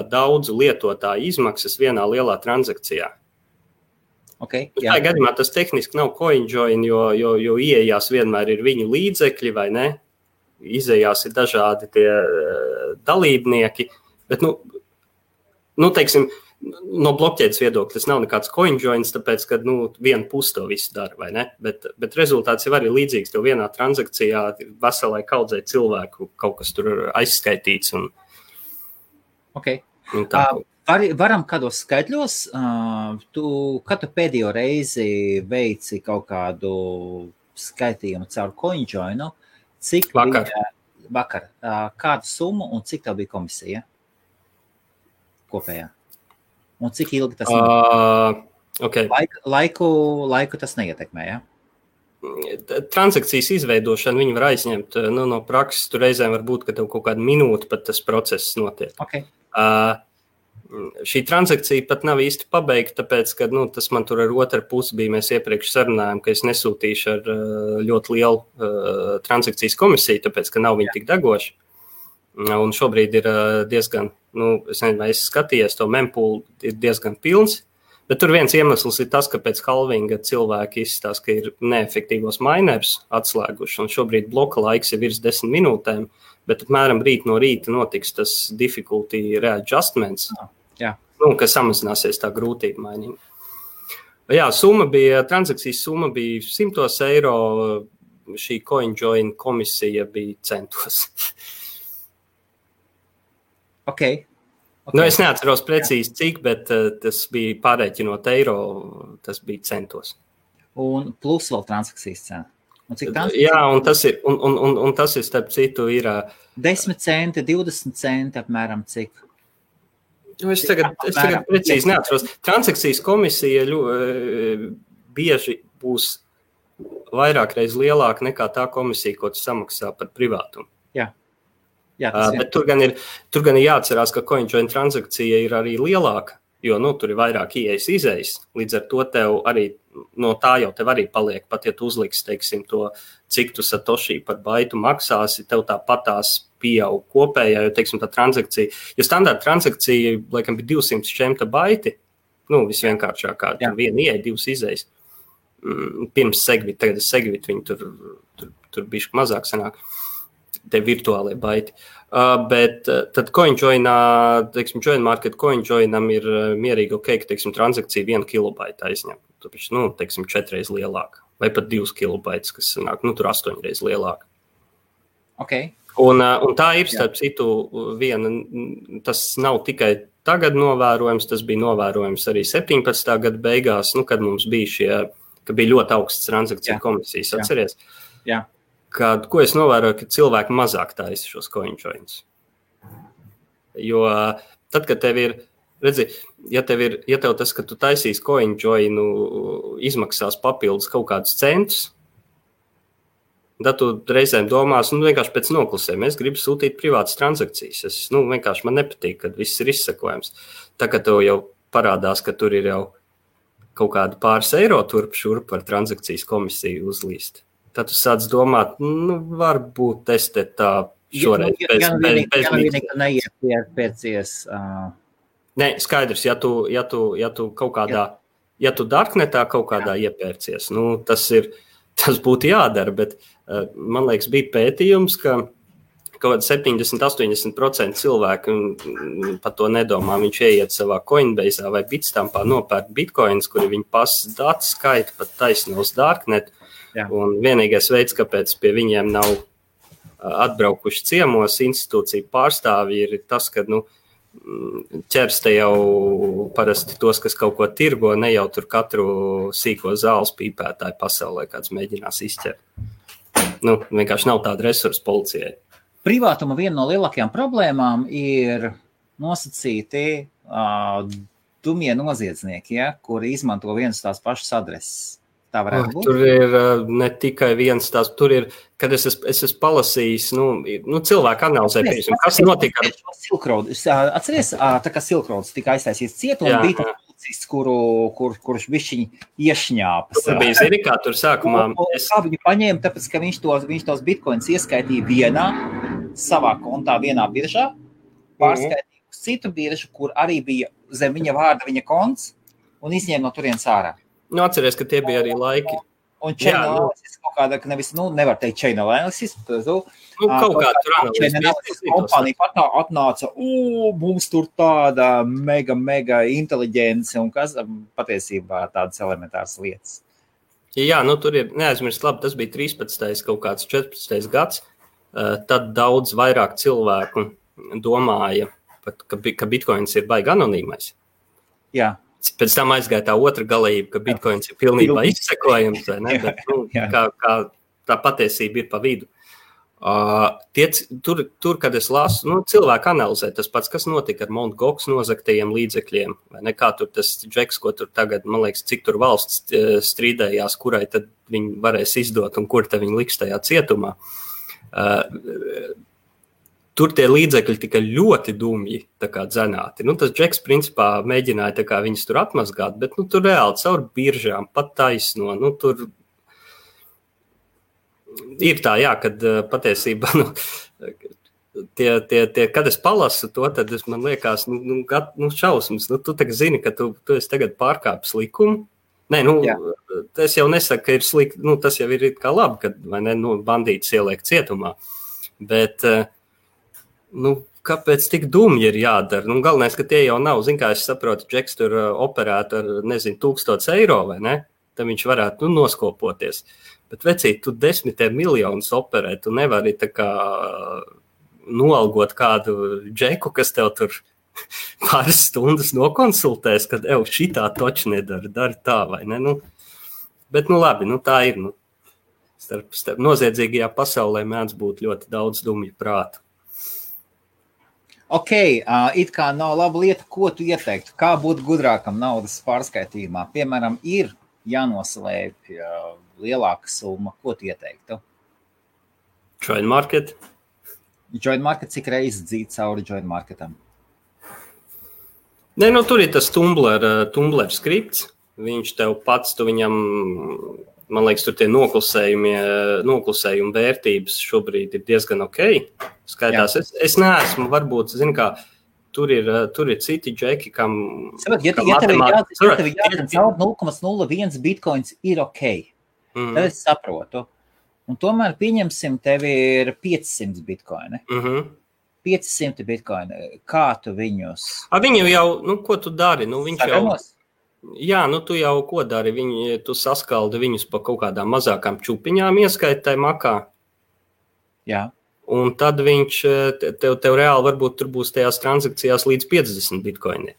daudzu lietotāju izmaksas vienā lielā transakcijā. Tā gadījumā tas tehniski nav CoinJoin, jo ieejās vienmēr ir viņu līdzekļi, vai ne? Izejās ir dažādi tie dalībnieki, bet, teiksim, no blokķēdes viedokļa tas nav nekāds CoinJoins, tāpēc, ka viena puse to visu dara, vai ne? Bet rezultāts jau arī līdzīgs, tev vienā transakcijā veselai kaudzei cilvēku kaut kas tur aizskaitīts. Varam kādos skaitļos, kad tu pēdējo reizi veici kaut kādu skaitījumu caur CoinJoinu, cik vakar, kādu summu un cik tev bija komisija kopējā? Un cik ilgi tas laiku tas neietekmē, ja? Transakcijas izveidošana viņi var aizņemt no prakses. Tur reizēm var būt, ka tev kaut kādu minūti pat tas process notiek. Šī transakcija pat nav īsti pabeigta, tāpēc, ka tas man tur ar otru pusi bija. Mēs iepriekš sarunājām, ka es nesūtīšu ar ļoti lielu transakcijas komisiju, tāpēc, ka nav viņi tik degoši. Un šobrīd ir diezgan, es nezinu, vai es skatījies, to mempool ir diezgan pilns, bet tur viens iemesls ir tas, ka pēc halvinga cilvēki izstāsta, ka ir neefektīvos minerus atslēguši, un šobrīd bloka laiks ir virs 10 minūtēm, bet apmēram rīt no rīta notiks tas difficulty readjustments, kas samazināsies tā grūtība mainīga. Jā, transakcijas summa bija 100 eiro, šī CoinJoin komisija bija centos. Okay. Nu, es neatceros precīzi cik, bet tas bija pārēķinot eiro, tas bija centos. Un plus vēl transakcijas cena. Un cik Jā, un tas ir starp citu ir 10 centi, 20 centi apmēram cik. Es tagad precīzi neatceros. Transakcijas komisija bieži būs vairāk reiz lielāka nekā tā komisija, ko tu samaksā par privātumu. Jā, bet tur gan ir jāatcerās, ka CoinJoin transakcija ir arī lielāka, jo tur ir vairāk ieejas izējas. Līdz ar to tev arī, no tā jau tev arī paliek, pat ja tu uzliks, teiksim, to, cik tu satoshi par baitu maksāsi, tev tāpatās pieaug kopējā, jo, teiksim, tā transakcija, jo standarta transakcija, laikam, bija 200 šķemta baiti, visvienkāršākā, viena ieeja, 2 izējas. Pirms Segvit, tagad Segvit, viņi tur bišķi mazāk sanāk. Te virtuālie baiti. Bet tad CoinJoinā, teiksim, Join Market CoinJoinam ir mierīgi ka, teiksim, transakcija 1 kilobaita aizņem. Tāpēc, teiksim, 4 reiz lielāka. Vai pat 2 kilobaitas, kas sanāk, tur 8 reiz lielāka. Okay. Un tā ir, starp citu, viena, tas nav tikai tagad novērojams, tas bija novērojams arī 17. gada beigās, kad mums bija ka bija ļoti augsts transakciju komisijas, atceries? Jā. Ko es novēroju, ka cilvēki mazāk taisa šos CoinJoins. Jo tad, kad tev ir, redzi, ja tev tas, ka tu taisīs CoinJoinu, izmaksās papildus kaut kādus centus, tad tu reizēm domās, vienkārši pēc noklusēm, es gribu sūtīt privātas transakcijas. Vienkārši man nepatīk, kad viss ir izsekojams. Tā, ka tev jau parādās, ka tur ir jau kaut kādu pāris eiro turp šurp par transakcijas komisiju uzlīst. Tad tu sāc domāt, varbūt es te tā šoreiz bez neiepērcies. Nē, skaidrs, ja tu kaut kādā, ja tu darknetā kaut kādā iepērcies, tas būtu jādara, bet man liekas, bija pētījums, ka kaut kāda 70-80% cilvēku par to nedomā. Viņš ieiet savā Coinbase'ā vai Bitstampā nopērk bitcoins, kuri viņi pasas datu skaita pat taisno uz darknetu. Jā. Un vienīgais veids, kāpēc pie viņiem nav atbraukuši ciemos institūciju pārstāvji, ir tas, ka ķers te jau parasti tos, kas kaut ko tirgo, ne jau tur katru sīko zāles pīpētāju pasaulē, kāds mēģinās izķert. Vienkārši nav tāda resursa policijai. Privātuma viena no lielākajām problēmām ir nosacīti dumie noziedznieki, kuri izmanto vienas tās pašas adreses. Tā varētu būt. Tur ir ne tikai viens tās, tur ir, kad es esmu palasījis, cilvēku analizē, kas notika ar Silk Road. Atceries, tā kā Silk Road tika aiztaisīts ciet, un bija tāds policists, kurš bišķiņi iešņāpas. Tur bija, zini, kā tur sākumā. Kā viņu paņēma, tāpēc, ka viņš tos bitcoins ieskaitīja vienā, savā kontā, vienā biržā, pārskaitīja uz citu biržu, kur arī bija zem viņa vārda viņa konts, un izņēma no turienes ārā. Atceries, ka tie bija arī laiki. Un chain analysis kaut kāda, ka nevis, nevar teikt chain analysis, kaut kā tur analysis kompānija pat atnāca, mums tur tāda mega inteliģence, un kas patiesībā tādas elementāras lietas. Jā, tur ir, neaizmirst, labi, tas bija 13. kaut kāds 14. gads, tad daudz vairāk cilvēku domāja, ka bitcoins ir baigi anonīmais. Jā. Pēc tam aizgāja tā otra galība, ka bitcoins ir pilnībā izsekojams, vai ne? Bet, kā tā patiesība ir pa vidu. Tur, kad es lasu, cilvēku analizē tas pats, kas notika ar Mt. Gox nozagtajiem līdzekļiem, vai ne? Kā tur tas džeks, ko tur tagad, man liekas, cik tur valsts strīdējās, kurai tad viņi varēs izdot un kur tad viņi liks tajā cietumā. Tur tie līdzekļi tika ļoti dumji dzenāti. Tas džeks principā mēģināja viņus tur atmazgāt, bet tur reāli caur biržām, pat taisno. Tur ir tā, jā, kad patiesībā, kad es palasu to, tad man liekas, šausmas. Tu tagad zini, ka tu esi tagad pārkāpis likumu. Nē, tas jau nesaka, ka ir slikti, tas jau ir kā labi, kad vai ne, bandītis ieliek cietumā. Bet kāpēc tik dumji ir jādara? Galvenais, ka tie jau nav, zin kā es saprotu, džeks tur operētu ar, 1000 eiro, vai ne? tad viņš varētu noskopoties. Bet, vecīt, tu 10 miljonus operē, tu nevari tā kā noalgot kādu džeku, kas tev tur pāris stundas nokonsultēs, kad šitā toči nedara, dari tā vai ne. Bet, labi, tā ir. Starp noziedzīgajā pasaulē mēdz būt ļoti daudz dumju prātu. Ok, it kā nav laba lieta, ko tu ieteiktu? Kā būt gudrākam naudas pārskaitījumā? Piemēram, ir jānoslēp lielāka summa. Ko tu ieteiktu? Join market. Join market, cik reizes dzīt cauri join marketam? Nē, tur ir tas Tumblr skripts. Viņš tev pats, tu viņam, man liekas, tur tie noklusējumi vērtības šobrīd ir diezgan ok. Skaitās. Es neesmu, varbūt, zinu kā, tur ir citi džeki, kam... Ja tev ir jāzina caur 0,01 bitcoins ir ok, tad es saprotu. Un tomēr pieņemsim, tev ir 500 bitcoini. 500 bitcoini. Kā tu viņus... Viņu jau, ko tu dari? Viņš Sagamos? Jā, tu jau ko dari? Tu saskaldi viņus pa kaut kādām mazākām čupiņām ieskaitai makā. Jā. Un tad viņš, tev reāli varbūt tur būs tajās transakcijās līdz 50 bitcoini.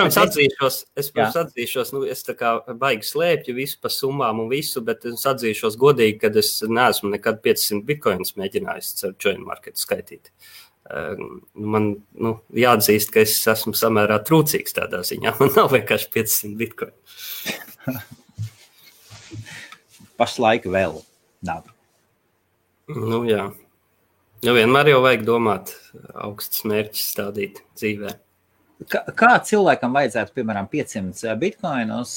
Es atzīšos, es tā kā baigi slēpju visu pa summām un visu, bet es atzīšos godīgi, kad es neesmu nekad 500 bitcoinus mēģinājis ar join market skaitīt. Man jāatzīst, ka es esmu samērā trūcīgs tādā ziņā. Man nav vienkārši 500 bitcoinu. Pašlaik vēl nav. Jā. Vienmēr jau vajag domāt augstus mērķus stādīt dzīvē. Kā cilvēkam vajadzētu, piemēram, 500 bitcoinus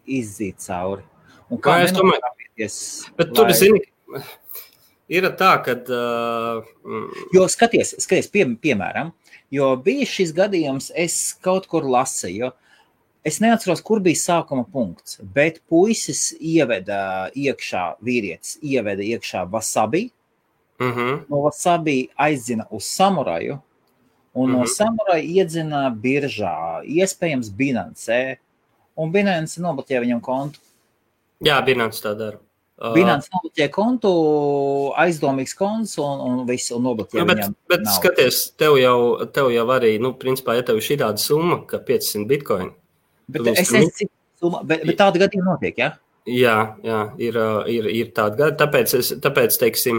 izdzīt cauri? Un kā nenokāpieties? Bet tur, zini, ir tā, kad... Jo skaties, piemēram, jo bija šis gadījums, es kaut kur lasīju, es neatceros, kur bija sākuma punkts, bet puisis vīrietis ieveda iekšā wasabi, no wasabi aizzina uz samuraju, un no samuraja iedzina biržā, iespējams Binance, un Binance nobloķē viņam kontu. Jā, Binance tā dara. Binance nobloķē kontu, aizdomīgs konts un visu nobloķē viņam. Bet skaties, tev jau arī, principā, ja tev ir šī tāda summa, ka 500 bitcoin. Bet es nezinu, cik summa, bet tāda gadījuma notiek, ja? Jā, ir tāda gadījuma, tāpēc, teiksim,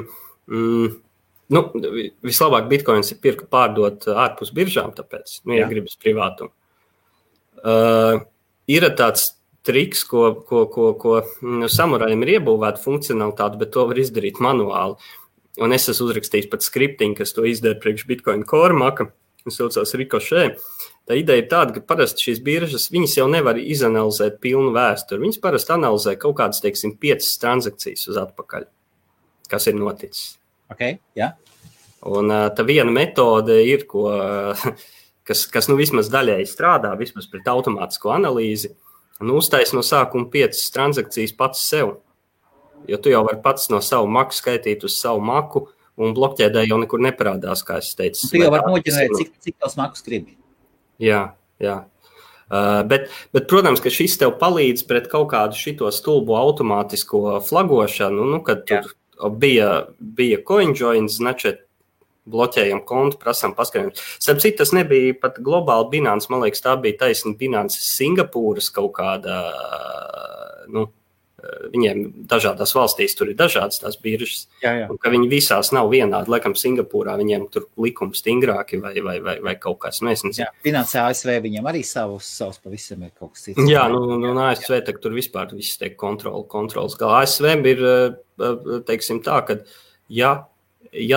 vislabāk bitcoins ir pārdot ārpus biržām, tāpēc, ja gribas privātumu. Ir tāds triks, ko samurajiem ir iebūvēta funkcionalitāte, bet to var izdarīt manuāli. Un es esmu uzrakstījis pat skriptiņu, kas to izdara priekš Bitcoin Core maka, un saucās Ricochet. Tā ideja ir tāda, ka parasti šīs biržas, viņas jau nevar izanalizēt pilnu vēsturi. Viņas parasti analizē kaut kādas, teiksim, 5 transakcijas uz atpakaļ, kas ir noticis. Okay, jā. Un tā viena metode ir, kas vismaz daļēji strādā, vismaz pret automātisko analīzi, un uztais no sākuma 5 transakcijas pats sev. Jo tu jau vari pats no savu maku skaitīt uz savu maku, un blokķēdē jau nekur neparādās, kā es teicu. Tu jau vari noģenerēt, cik tos makus gribi. Jā. Bet, protams, ka šis tev palīdz pret kaut kādu šito stulbu automātisko flagošanu, kad tur bija CoinJoin, značet, bloķējam kontu, prasām paskatījumus. Starp citu, tas nebija pat globāli Binance, man liekas, tā bija taisni Binance Singapūras kaut kāda, viņiem dažādās valstīs tur ir dažādas tās biržas, un ka viņi visās nav vienādi. Laikam Singapūrā viņiem tur likumi stingrāki vai kaut kas, mēs nezinu. Jā, Binance ASV viņiem arī savus pavisam ir kaut kas cits. Jā, ASV tur vispār viss tiek kontrols. Kā ASV ir, teiksim tā, ka ja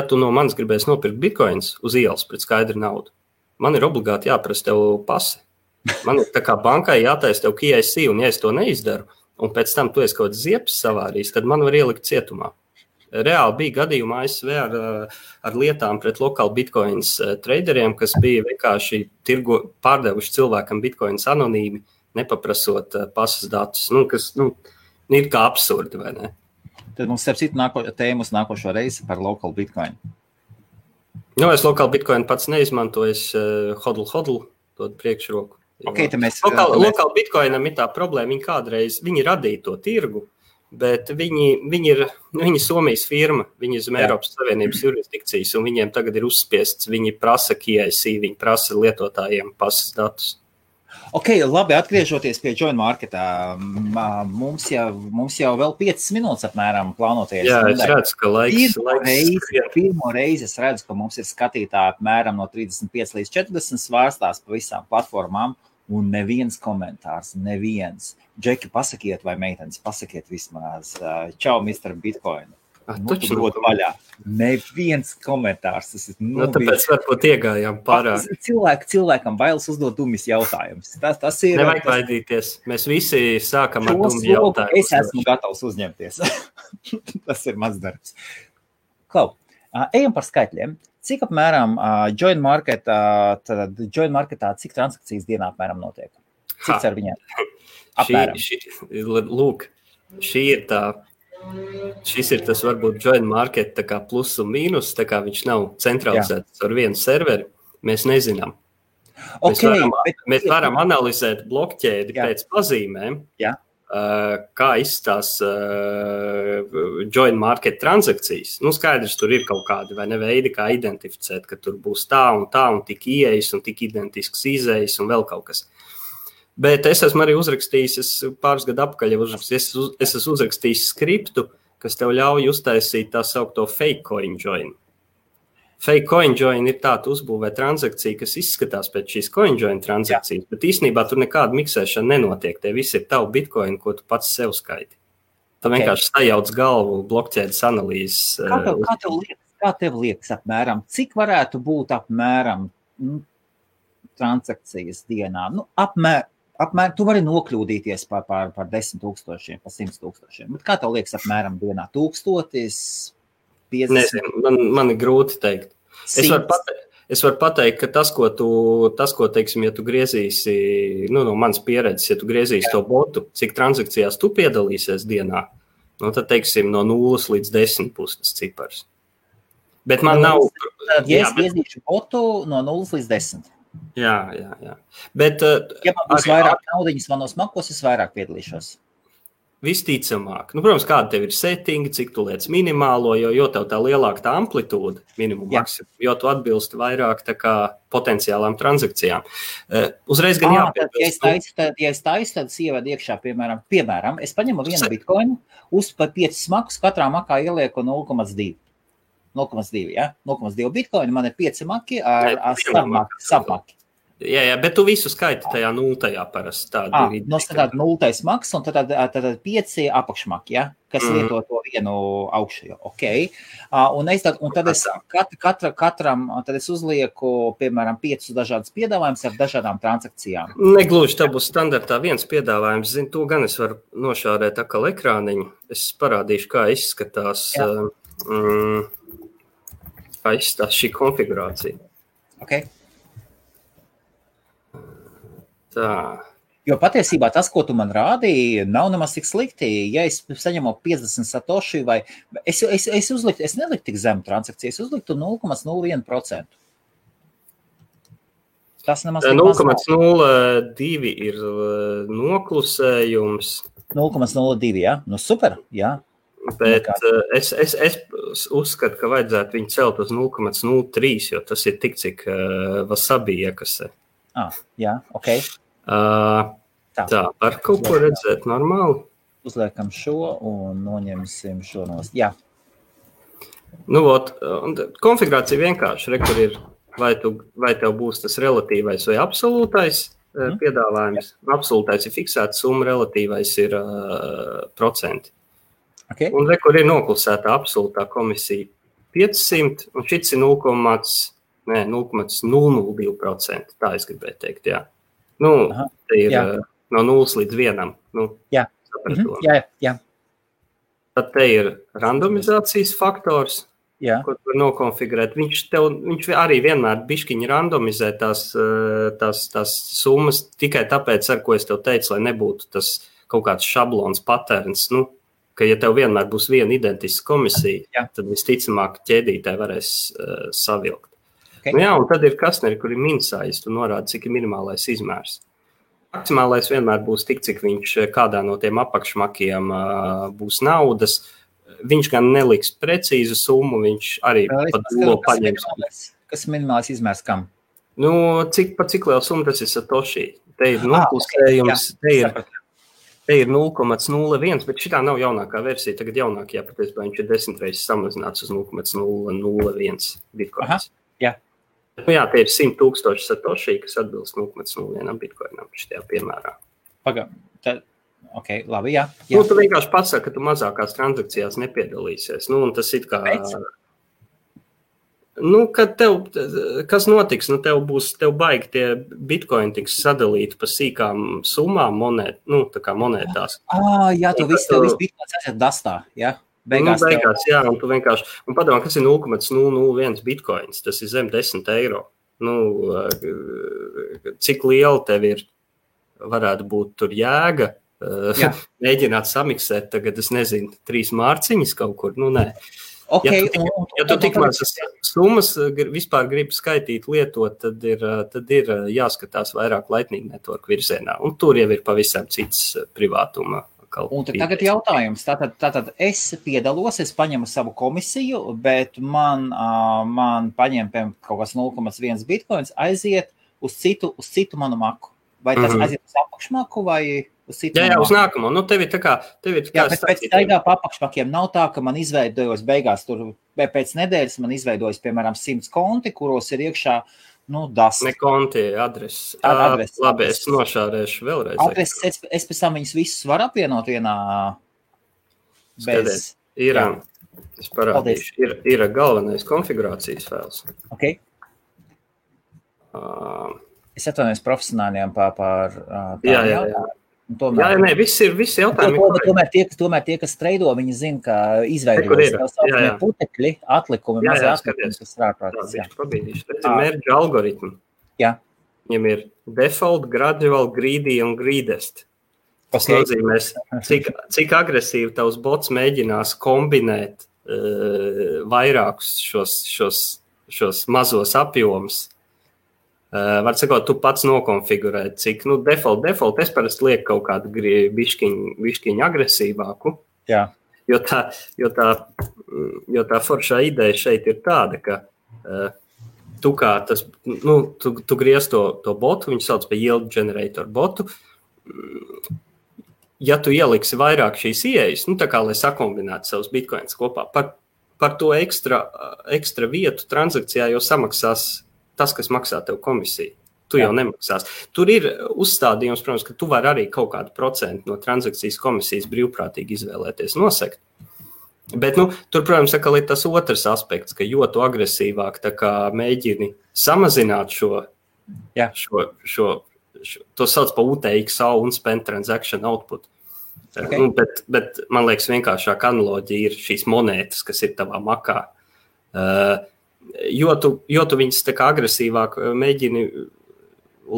tu no manis gribēsi nopirkt bitcoins uz ielas pret skaidru naudu, man ir obligāti jāprasa tev pase. Man ir tā kā bankai jātaisa tev KYC, un ja es to neizdaru, un pēc tam tu esi kaut kāds ziepes savārījis, tad man var ielikt cietumā. Reāli bija gadījumā ASV ar lietām pret lokāli bitcoins traderiem, kas bija vienkārši pārdevuši cilvēkam bitcoins anonīmi, nepaprasot pasas datus, kas ir kā absurdi, vai ne? Tad mums starp citu tēmas nākošo reizi par local bitcoin. Es local bitcoin pats neizmantoju, es hodl dod priekšroku. Okay, lokāli Bitcoinam ir tā problēma, viņi radīja to tirgu, bet viņi ir Somijas firma, viņi ir zem Eiropas Savienības jurisdikcijas, un viņiem tagad ir uzspiests, viņi prasa KYC, viņi prasa lietotājiem pasas datus. Ok, labi, atgriežoties pie Join Marketā, mums jau vēl 5 minūtes apmēram plānoties. Jā, es redzu, ka laiks Pirmo reizi es redzu, ka mums ir skatītāji apmēram no 35 līdz 40 svārstās pa visām platformām, un neviens komentārs, neviens. Džeki, pasakiet, vai meitenes, pasakiet vismaz. Čau, Mr. Bitcoin. Dod vaļā. Neviens komentārs. Tāpēc varbūt iegājām pārāk. Cilvēkam bailes uzdot dumjas jautājumus. Tas ir... Nevajag baidīties. Mēs visi sākam ar dumju jautājumus. Es esmu gatavs uzņemties. Tas ir mans darbs. Klau, ejam par skaitļiem. Cik apmēram Join Marketā, cik transakcijas dienā apmēram notiek? Cik ar viņiem? Apmēram. Lūk, šis ir tas varbūt Join Market tā kā plus un mīnus, tā kā viņš nav centralizēts ar vienu serveri, mēs nezinām. Mēs varam analizēt blokķēdi pēc pazīmēm, kā izstās Join Market transakcijas. Skaidrs, tur ir kaut kādi vai ne veidi, kā identificēt, ka tur būs tā un tik ieejas un tik identisks izējas un vēl kaut kas. Bet es esmu arī uzrakstījis, pāris gadu apakaļ es esmu uzrakstījis skriptu, kas tev ļauj uztaisīt tā saukto fake coin join. Fake coin join ir tāda uzbūvē transakcija, kas izskatās pēc šīs coin join transakcijas, bet īstenībā tur nekāda miksēšana nenotiek. Tie visi ir tavu bitcoin, ko tu pats sev skaiti. Tā vienkārši sajauc galvu blokķēdes analīzes. Kā tev liekas apmēram? Cik varētu būt apmēram transakcijas dienā? Apmēram, tu vari nokļūdīties par 10 000, par 100 000. Bet kā tev liekas apmēram dienā? 1000, 50? Nezinu, man ir grūti teikt. Es varu pateikt, ka tas, ko teiksim, ja tu griezīsi, no manas pieredzes, ja tu griezīsi to botu, cik transakcijās tu piedalīsies dienā, tad, teiksim, no 0 līdz 10 būs tas cipars. Bet man nav... Ja es griezīšu botu no 0 līdz 10. Jā. Bet, ja man būs vairāk naudiņas manos makos, es vairāk piedalīšos. Visticamāk. Protams, kāda tev ir settingi, cik tu liec minimālo, jo tev tā lielāka tā amplitūda, minimum maksimum, jo tu atbilsti vairāk tā kā potenciālām transakcijām. Uzreiz gan jāpiebilst. Ja es taisu, tad es ievedu iekšā, piemēram, es paņemu vienu bitcoinu, par 5 makus, katrā makā ielieku 0,2. 0,2, ja? 0,2 bitcoinu, man ir 5 maki ar submaki. Jā, bet tu visu skaiti tajā nultajā parasti. Tātad nultais maks un tad 5 apakšmaki, ja? Kas lieto to vienu augšējo. Okay. Un tad es katram tad es uzlieku, piemēram, 5 dažādas piedāvājumus ar dažādām transakcijām. Negluži, tā būs standartā viens piedāvājums. Zinu, to gan es varu nošārēt atkal ekrāniņu. Es parādīšu, kā izskatās šī konfigurācija. Okay. Tā. Jo patiesībā tas, ko tu man rādīji, nav nemaz tik slikti. Ja es saņemu 50 satoši vai... Es neliktu tik zemu transakciju, es uzliktu 0,01%. Tas nemaz tik maz nav. 0,02 ir noklusējums. 0,02, jā? Super, jā. Bet es uzskatu, ka vajadzētu viņu celt uz 0,03, jo tas ir tik, cik Wasabi iekasē. Jā, ok. Tā, var kaut ko redzēt normāli? Uzliekam šo un noņemsim šo nost. Jā. Konfigurācija vienkārši, kur ir, vai tev būs tas relatīvais vai absolūtais piedāvājums. Absolūtais ir fiksēta summa, relatīvais ir procenti. Okay. Un kur ir noklusēta absolūtā komisija 500, un šits ir 0,002%. Tā es gribēju teikt, jā. Te ir no 0 līdz 1. Jā. Jā. Tad te ir randomizācijas faktors, ko tu var nokonfigurēt. Viņš arī vienmēr bišķiņi randomizē tās summas tikai tāpēc, ar ko es tev teicu, lai nebūtu tas kaut kāds šablons patērns, ka ja tev vienmēr būs viena identiska komisija, tad visticamāk ķēdītē varēs savilkt. Okay. Un tad ir kastneri, kur ir minsājis, tu norādi, cik ir minimālais izmērs. Maksimālais vienmēr būs tik, cik viņš kādā no tiem apakšmakiem būs naudas. Viņš gan neliks precīzu summu, viņš arī pat dolo paņems. Kas minimālais izmērs kam? Nu, cik liela summa tas ir Satoshi? Te ir nopusējums, te ir 0,01, bet šitā nav jaunākā versija. Tagad jaunākajā patiesībā viņš ir 10 reizes samazināts uz 0,001 bitcoins. Jā. Nu jā, te ir 100,000 Satoshi, kas atbilst 0,01 bitcoinam šitajā piemērā. Ok, labi, jā. Nu, tu vienkārši pasaki, ka tu mazākās transakcijās nepiedalīsies. Nu, un tas it kā... Nu, kad kas notiks? Nu, tev baigi tie bitcoini tiks sadalīti pa sīkām summām tā kā monētās. Jā, tu visu bitcoins aiziet dastā, jā? Beigās, jā, un tu vienkārši... Un padomā, kas ir 0,001 bitcoins? Tas ir zem 10 eiro. Nu, cik liela tev ir, varētu būt tur jēga? Mēģināt samiksēt tagad, es nezinu, 3 mārciņas kaut kur, nu nē. Okay, ja tu tikmaz summas vispār gribi skaitīt, lietot, tad ir jāskatās vairāk Lightning Network virzienā, un tur jau ir pavisam cits privātuma. Un tagad jautājums, tātad es piedalos, es paņemu savu komisiju, bet man paņem kaut kas 0,1 bitcoins, aiziet uz citu manu maku. Vai tas aiziet uz apakšmaku vai uz citu? Jā, uz nākamo. Nu, tev ir tā kā... Jā, bet pēc taigā pa apakšmakiem nav tā, ka man izveidojos beigās tur, pēc nedēļas man izveidojas, piemēram, 100 konti, kuros ir iekšā, dast. Ne konti, adreses. Labi, es nošārēšu vēlreiz. Adreses, es pēc tam viņus visus varu apvienot vienā bez... Es parādīšu. Ir galvenais konfigurācijas fails. Ok. Es atvainojos profesionāļiem par jā. Tomēr, visi jautājumi. Tomēr tie, kas treido, viņi zina, ka izveidojas putekļi, atlikumi, mazie atlikumi, kas strāprātas. Pabīdīšu. Tas ir merge algoritmi. Jā. Viņam ir default, gradual, greedy un greedest. Tas nozīmēs, cik agresīvi tavs bots mēģinās kombinēt vairākus šos mazos apjomus. Var sakot, tu pats nokonfigurēt, cik, default, es parasti lieku kaut kādu bišķiņu agresīvāku. Jā. Jo tā foršā ideja šeit ir tāda, ka tu kā tas, tu griez to botu, viņu sauc par yield generator botu. Ja tu ieliksi vairāk šīs ieejas, tā kā, lai sakombinētu savus bitcoins kopā, par to ekstra vietu transakcijā jau samaksās tas, kas maksā tev komisiju. Tu jau nemaksās. Tur ir uzstādījums, protams, ka tu vari arī kaut kādu procentu no transakcijas komisijas brīvprātīgi izvēlēties nosekt. Bet, tur, protams, atkal ir tas otrs aspekts, ka jo tu agresīvāk tā kā mēģini samazināt to sauc par UTXO, Unspent Transaction Output. Okay. Bet man liekas, vienkāršāk analoģija ir šīs monētas, kas ir tavā makā. Jo tu viņas tā kā agresīvāk mēģini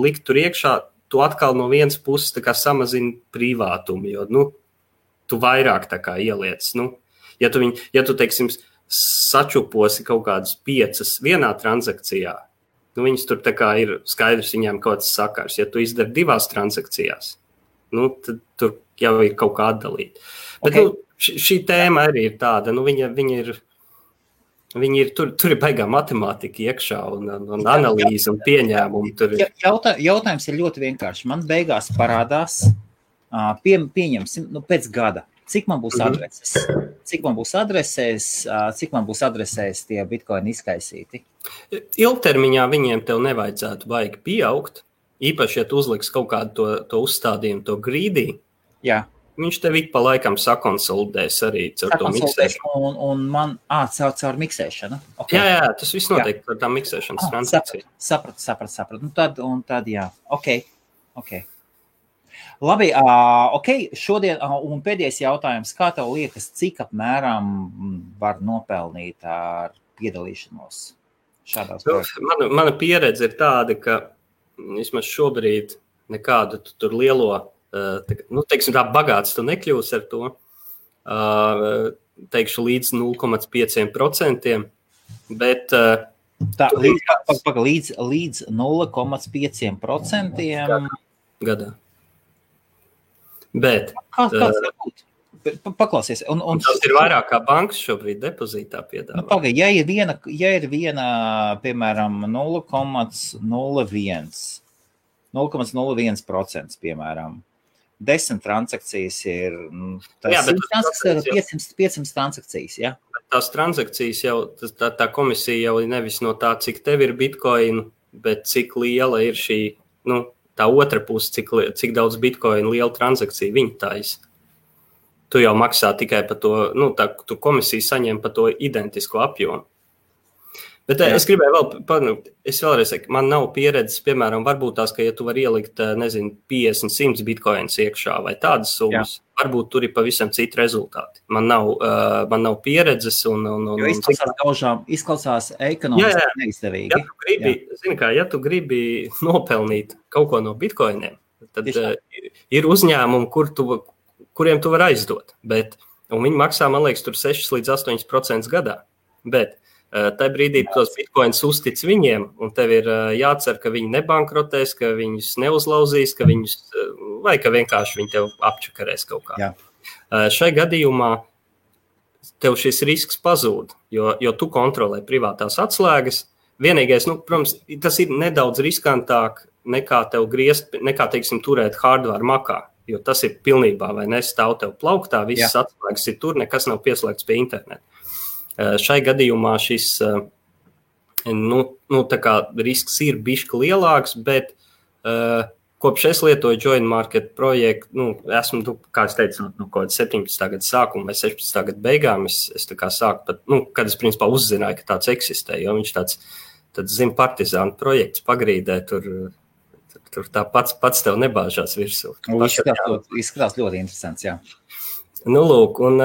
likt tur iekšā, tu atkal no vienas puses tā kā samazini privātumu, jo, tu vairāk tā kā ieliec, ja tu, teiksim, sačuposi kaut kādas 5 vienā transakcijā, viņas tur tā kā ir skaidrs viņām kaut kāds sakars, ja tu izdari 2 transakcijās, tad tur jau ir kaut kā atdalīt. Bet, šī tēma arī ir tāda, viņi ir, tur ir baigā matemātika iekšā un analīze un pieņēmumi. Jautājums ir ļoti vienkārši. Man beigās parādās, pieņemsim, pēc gada, cik man būs adreses, cik man būs adresēs tie bitcoini izkaisīti. Ilgtermiņā viņiem tev nevajadzētu baigi pieaugt, īpaši, ja tu uzliks kaut kādu to uzstādījumu, to greedy. Jā. Viņš tev ik pa laikam sakonsolidēs arī caur to miksēšanu. Un man, caur miksēšanu. Okay. Jā, tas viss notiek par tā miksēšanas transakciju. Sapratu. Tad jā. Ok. Labi, šodien, un pēdējais jautājums, kā tev liekas, cik apmēram var nopelnīt ar piedalīšanos šādās projektās? Mana pieredze ir tāda, ka vismaz šobrīd nekādu tur lielo teiksim tā, bagāts tu nekļūsi ar to, teikšu līdz 0,5%, bet... Līdz 0,5% gadā. Bet Kāds var būt? Paklausies. Un tas ir vairāk kā bankas šobrīd depozītā piedāvā. Pagaid, ja ir viena, piemēram, 0,01%, piemēram, 10 transakcijas ir, tas 500 transakcijas, ja? Tās transakcijas jau, tā komisija jau nevis no tā, cik tev ir bitcoin, bet cik liela ir šī, tā otra puse, cik daudz bitcoin liela transakcija viņa taisa. Tu jau maksā tikai par to, tu komisija saņem par to identisko apjomu. Bet es gribēju vēlreiz teikt, man nav pieredzes, piemēram, varbūt tās, ka ja tu vari ielikt, 50, 100 bitcoins iekšā vai tādas summas, varbūt tur ir pavisam citi rezultāti. Man nav pieredzes jo izklausās ekonomiski neizdevīgi. Ja tu gribi nopelnīt kaut ko no bitcoiniem, tad ir uzņēmumi, kuriem tu vari aizdot, un viņi maksā, man liekas, tur 6 līdz 8% gadā, bet tajā brīdī tos bitcoins uztic viņiem, un tev ir jācer, ka viņi nebankrotēs, ka viņus neuzlauzīs, vai ka vienkārši viņi tev apčakarēs kaut kā. Šai gadījumā tev šis risks pazūd, jo tu kontrolē privātās atslēgas. Vienīgais, protams, tas ir nedaudz riskantāk nekā teiksim, turēt hardware makā. Jo tas ir pilnībā, vai nestāv tev plauktā, visas atslēgas ir tur, nekas nav pieslēgts pie interneta. Šai gadījumā šis, tā kā risks ir bišķi lielāks, bet kopš es lietoju Join Market projektu, esmu, kā es teicu, no kaut 17. gada sākuma vai 16. gada beigām, es tā kā sāku pat, kad es principā uzzināju, ka tāds eksistē, jo viņš tāds partizānu projekts pagrīdē, tur tā pats tev nebāžās virsū. Izskatās ļoti interesants, jā. Lūk, un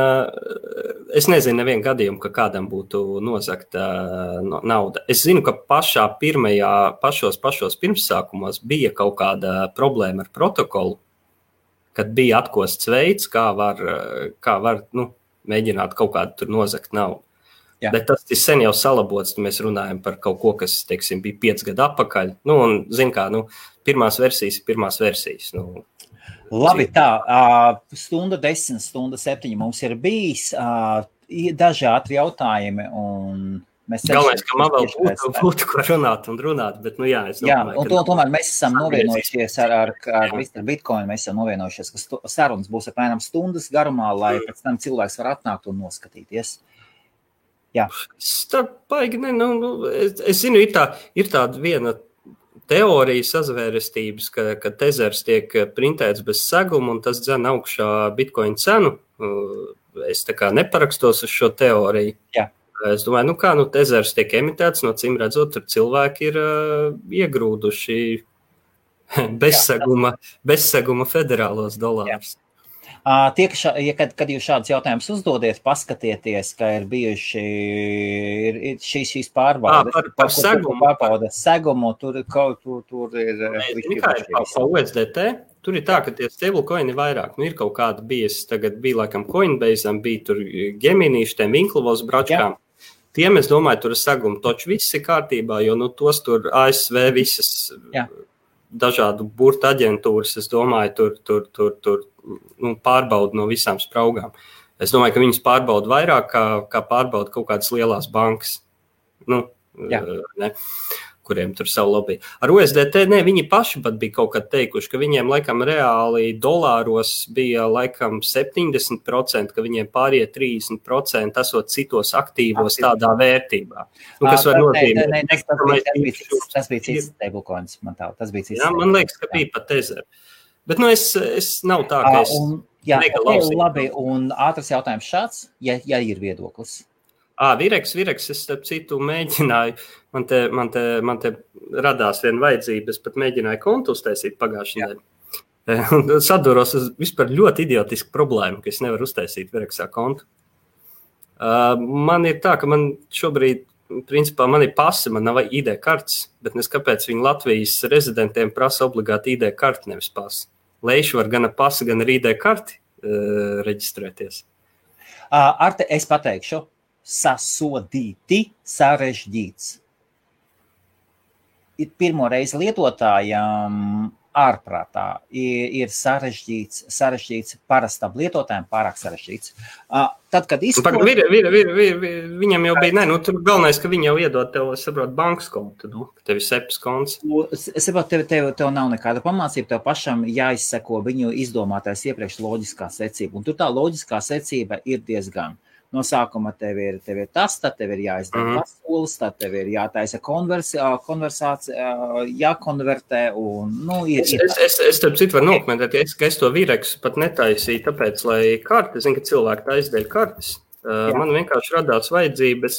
es nezinu nevienu gadījumu, ka kādam būtu nozagta nauda. Es zinu, ka pašos pirmsākumos bija kaut kāda problēma ar protokolu, kad bija atkosts veids, kā var mēģināt kaut kādu tur nozagt naudu. Bet tas ir sen jau salabots, mēs runājam par kaut ko, kas, teiksim, bija 5 gadu atpakaļ. Un, zin kā, pirmās versijas. Labi, tā, stunda 10, stunda 7 mums ir bijis, daži ātri jautājumi, un mēs... Galvenais, ka man vēl būtu ko runāt, bet, es domāju... Un tomēr mēs esam novienojušies ar Mr. Bitcoin, mēs esam novienojušies, ka sarunas būs apmēram stundas garumā, lai pēc tam cilvēks var atnākt un noskatīties. Jā. Es zinu, ir tāda viena teorija sazvērestības, ka tezers tiek printēts bez seguma un tas dzen augšā bitcoin cenu. Es tā kā neparakstos uz šo teoriju. Jā. Es domāju, tezers tiek emitēts, no cim redzot, tur cilvēki ir iegrūduši bezseguma federālos dolārus. Kad jūs šādus jautājumus uzdodiet, paskatieties, ka ir bijuši šīs pārbaudes. Par segumu. Pārbaudes segumu, tur ir... Kā ir pa USDT? Tur ir tā, ka tie stablecoini ir vairāk. Ir kaut kāda tagad bija laikam Coinbase'am, bija tur Gemini, šitiem Winklavos bračkām. Tiem, es domāju, tur ir segumu, toči viss ir kārtībā, jo tos tur ASV visas dažādu burtu aģentūras, es domāju, tur pārbauda no visām spraugām. Es domāju, ka viņas pārbauda vairāk, kā pārbauda kaut kādas lielās bankas, kuriem tur savu lobby. Ar USDT, viņi paši pat bija kaut kad teikuši, ka viņiem laikam reāli dolāros bija laikam 70%, ka viņiem pārie 30% esot citos aktīvos tādā vērtībā. Kas var nozīmēt? Tas bija cits stablecoins, man tā. Tas bija cits. Jā, man liekas, ka bija pat Tether. Bet es nav tā, ka es negalausīju. Labi, un ātrs jautājums šāds, ja ir viedoklis. Vireks, es starp citu mēģināju, man te radās viena vajadzība, es pat mēģināju kontu uztaisīt pagājušajā nedēļā. Saduros vispār ļoti idiotisku problēmu, ka es nevaru uztaisīt Vireksā kontu. Man ir tā, ka man šobrīd, principā, man ir pasi, man nav ID kartes, bet nes kāpēc viņi Latvijas rezidentiem prasa obligāti ID karti, nevis pasi. Leiši var gan ar pasi, gan ar ID karti reģistrēties. Arte, es pateikšu. Sasodīti, sarežģīts. Pirmo reizi lietotājām ārprātā, ir sarežģīts parastam lietotājiem, pārāk sarežģīts. Tad, kad viņam jau bija, tur galvenais, ka viņi jau iedod tev, saprot, bankas kontu, tev ir SEPS konts. Es saprotu, tev nav nekāda pamācība, tev pašam jāizseko viņu izdomātais iepriekš loģiskā secība, un tur tā loģiskā secība ir diezgan. No sākuma tev ir tas, tad tev ir jāizdara solis, tad tev ir jātaisa konversācija, jākonvertē un, Es starp citu varu nokomentēt, ka es to Vireksu pat netaisīju, tāpēc, lai karti, zinu, ka cilvēki taisa dēļ kartes. Man vienkārši radās vajadzība,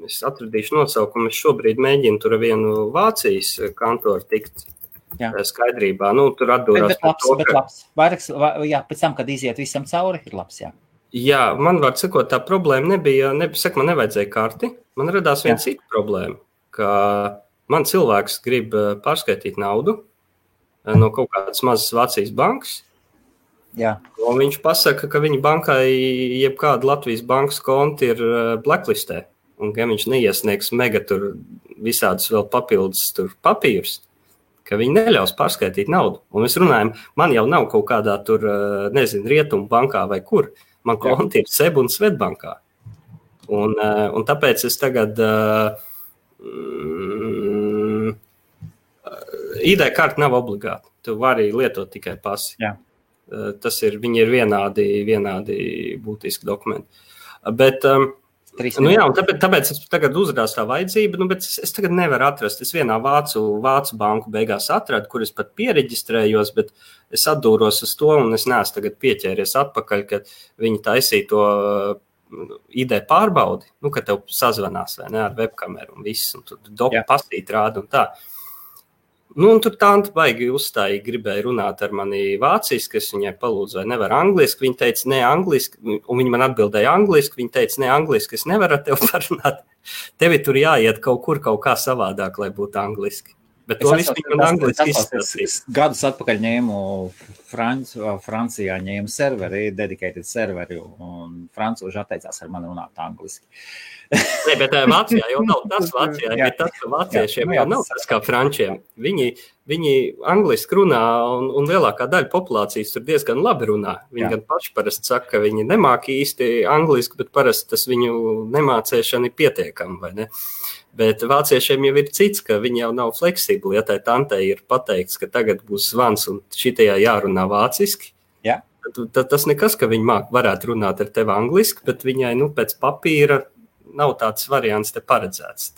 es atradīšu nosaukumu, es šobrīd mēģinu tur vienu Vācijas kantoru tikt skaidrībā. Tur atdūrās bet labs. Vairāks, pēc tam, kad iziet visam cauri, ir labs, Jā, man var sakot, tā problēma man nevajadzēja karti. Man radās viena cita problēma, ka man cilvēks grib pārskaitīt naudu no kaut kādas mazas Vācijas bankas. Jā. Un viņš pasaka, ka viņa bankai jebkāda Latvijas bankas konti ir blacklistē. Un ka viņš neiesniegs mega tur visādus vēl papildus tur papīrus, ka viņi neļaus pārskaitīt naudu. Un mēs runājam, man jau nav kaut kādā tur, Rietumu bankā vai kur. Man konti ir SEB un Svetbankā. Un tāpēc es tagad ID karta nav obligāta. Tu vari lietot tikai pasi. Jā. Viņi ir vienādi būtiski dokumenti. Bet, tāpēc es tagad uzrādās tā vajadzība, bet es tagad nevaru atrast. Es vienā vācu banku beigās atradu, kur es pat piereģistrējos, bet es atdūros uz to, un es neesmu tagad pieķēries atpakaļ, kad viņi taisīja to ID pārbaudi, kad tev sazvanās vai ne, ar webkameru un viss, un tur pasīt rāda un tā. Un tur tāda baigi uzstājīgi gribēja runāt ar mani vāciski, es viņai palūdzu, vai nevar angliski, viņa teica, ne angliski, un viņa man atbildēja angliski, viņa teica, ne angliski, es nevaru ar tev parunāt, tevi tur jāiet kaut kur kaut kā savādāk, lai būtu angliski. Bet to visu viņi man angliski izstāstīs. Gadus atpakaļ ņēmu Francijā serveri, dedicated serveri, un francūži atteicās ar mani runāt angliski. Nē, bet Vācijā jau nav tas. Vācijā ir tas, ka vāciešiem jau nav tas kā frančiem. Viņi angliski runā, un lielākā daļa populācijas tur diezgan labi runā. Viņi gan paši parasti saka, ka viņi nemāk īsti angliski, bet parasti tas viņu nemācēšana ir pietiekama, vai ne? Bet vāciešiem jau ir cits, ka viņi jau nav fleksibli. Ja tai tantei ir pateikts, ka tagad būs zvans un šitajā jārunā vāciski, tad tas nekas, ka viņi varētu runāt ar tevi angliski, bet viņai pēc papīra nav tāds variants te paredzēts.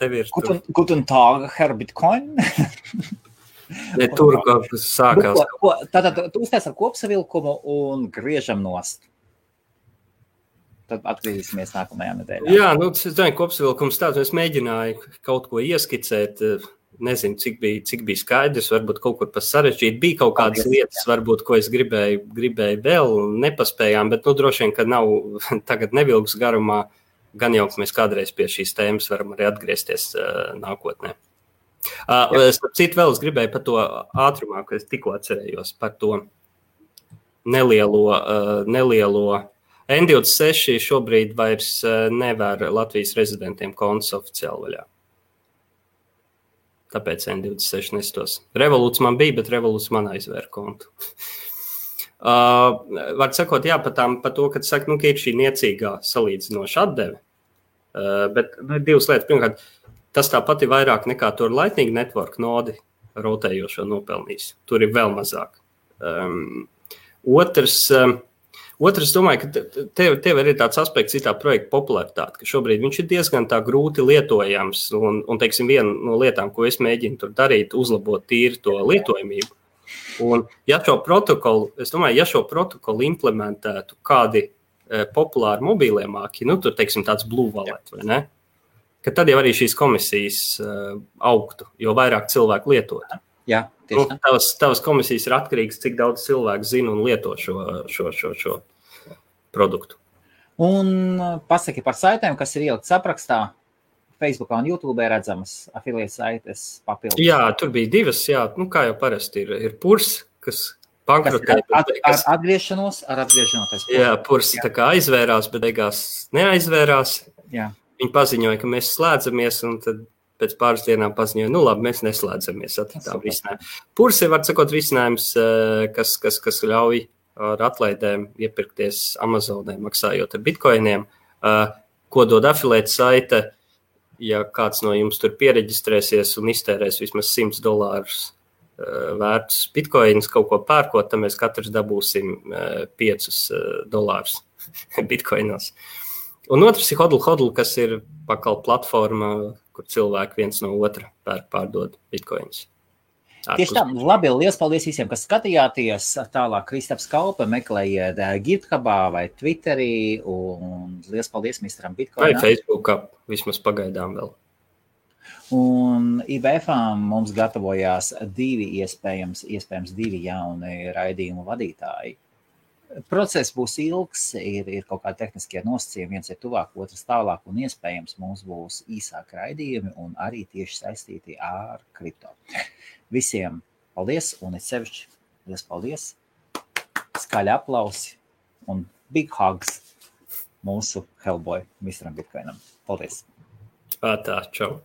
Guten Tag, Herr Bitcoin. Ne, tur sākās. Tātad tu uztais ar kopsavilkumu un griežam nost. Tad atgriezīsimies nākamajā nedēļā. Jā, es domāju, kopsavilkums tāds, es mēģināju kaut ko ieskicēt, nezinu, cik bija skaidrs, varbūt kaut kur pas sarežģīt. Bija kaut kādas lietas, varbūt, ko es gribēju vēl, nepaspējām, bet droši vien, ka nav tagad nevilgs garumā, gan jau, ka mēs kādreiz pie šīs tēmas varam arī atgriezties nākotnē. Citu vēl es gribēju par to ātrumā, ko es tikko atcerējos, par to nelielo N26 šobrīd vairs nevar Latvijas rezidentiem kontus oficiāli vaļā. Tāpēc N26 nestos. Revolūts man bija, bet Revolūts man aizvēra kontu. Var sakot, par to, kad saka, ka ir šī niecīgā salīdzinoša atdeve. Bet divas lietas. Pirmkārt, tas tāpat ir vairāk nekā tur Lightning Network nodi rotējošo nopelnījis. Tur ir vēl mazāk. Otrs, domāju, ka tev ir tāds aspekts, ir tā projekta popularitāte, ka šobrīd viņš ir diezgan tā grūti lietojams, un teiksim, viena no lietām, ko es mēģinu tur darīt, uzlabot tīri to lietojamību. Un ja šo protokolu implementētu kādi populāri mobīlie māki, tur, teiksim, tāds Blue Wallet, vai ne? Ka tad jau arī šīs komisijas augtu, jo vairāk cilvēku lietot. Jā, tieši tā. Tavas komisijas ir atkarīgas, cik daudz cilvēku zina un lieto šo produktu. Un pasaki par saitēm, kas ir ielikts aprakstā. Facebookā un YouTube redzamas afiliētas saites papildus. Jā, tur bija divas, kā jau parasti ir Purs, kas bankrotē. Ar atgriešanos. Jā, Purs tā kā aizvērās, bet beigās neaizvērās. Jā. Viņi paziņoja, ka mēs slēdzamies, un tad pēc pāris dienām paziņoja, labi, mēs neslēdzamies, atradām risinājumu. Purs ir, var sakot, risinājums, kas ļauj ar atlaidēm iepirkties Amazonē, maksājot ar bitcoiniem, ko dod affiliate saite, ja kāds no jums tur piereģistrēsies un iztērēs vismaz $100 vērtus bitcoinus kaut ko pērkot, tad mēs katrs dabūsim $5 bitcoinos. Un otrs ir Hodl, kas ir pakal platforma, kur cilvēki viens no otra pārdod bitcoinus. Tieši tā, labi, liels paldies visiem, kas skatījāties. Tālāk Kristaps Kalpe meklējiet GitHubā vai Twitterī, un liels paldies misteram Bitcoinam. Vai Facebookā, vismaz pagaidām vēl. Un IBF-ām mums gatavojās iespējams divi jauni raidījumu vadītāji. Process būs ilgs, ir kaut kādi tehniskie nosacījumi, viens ir tuvāk, otrs tālāk, un iespējams mums būs īsāki raidījumi un arī tieši saistīti ar kripto. Visiem paldies, un es sevišķi liels paldies, skaļi aplausi un big hugs mūsu Hellboy misteram Bitcoinam. Paldies! Tā, čau!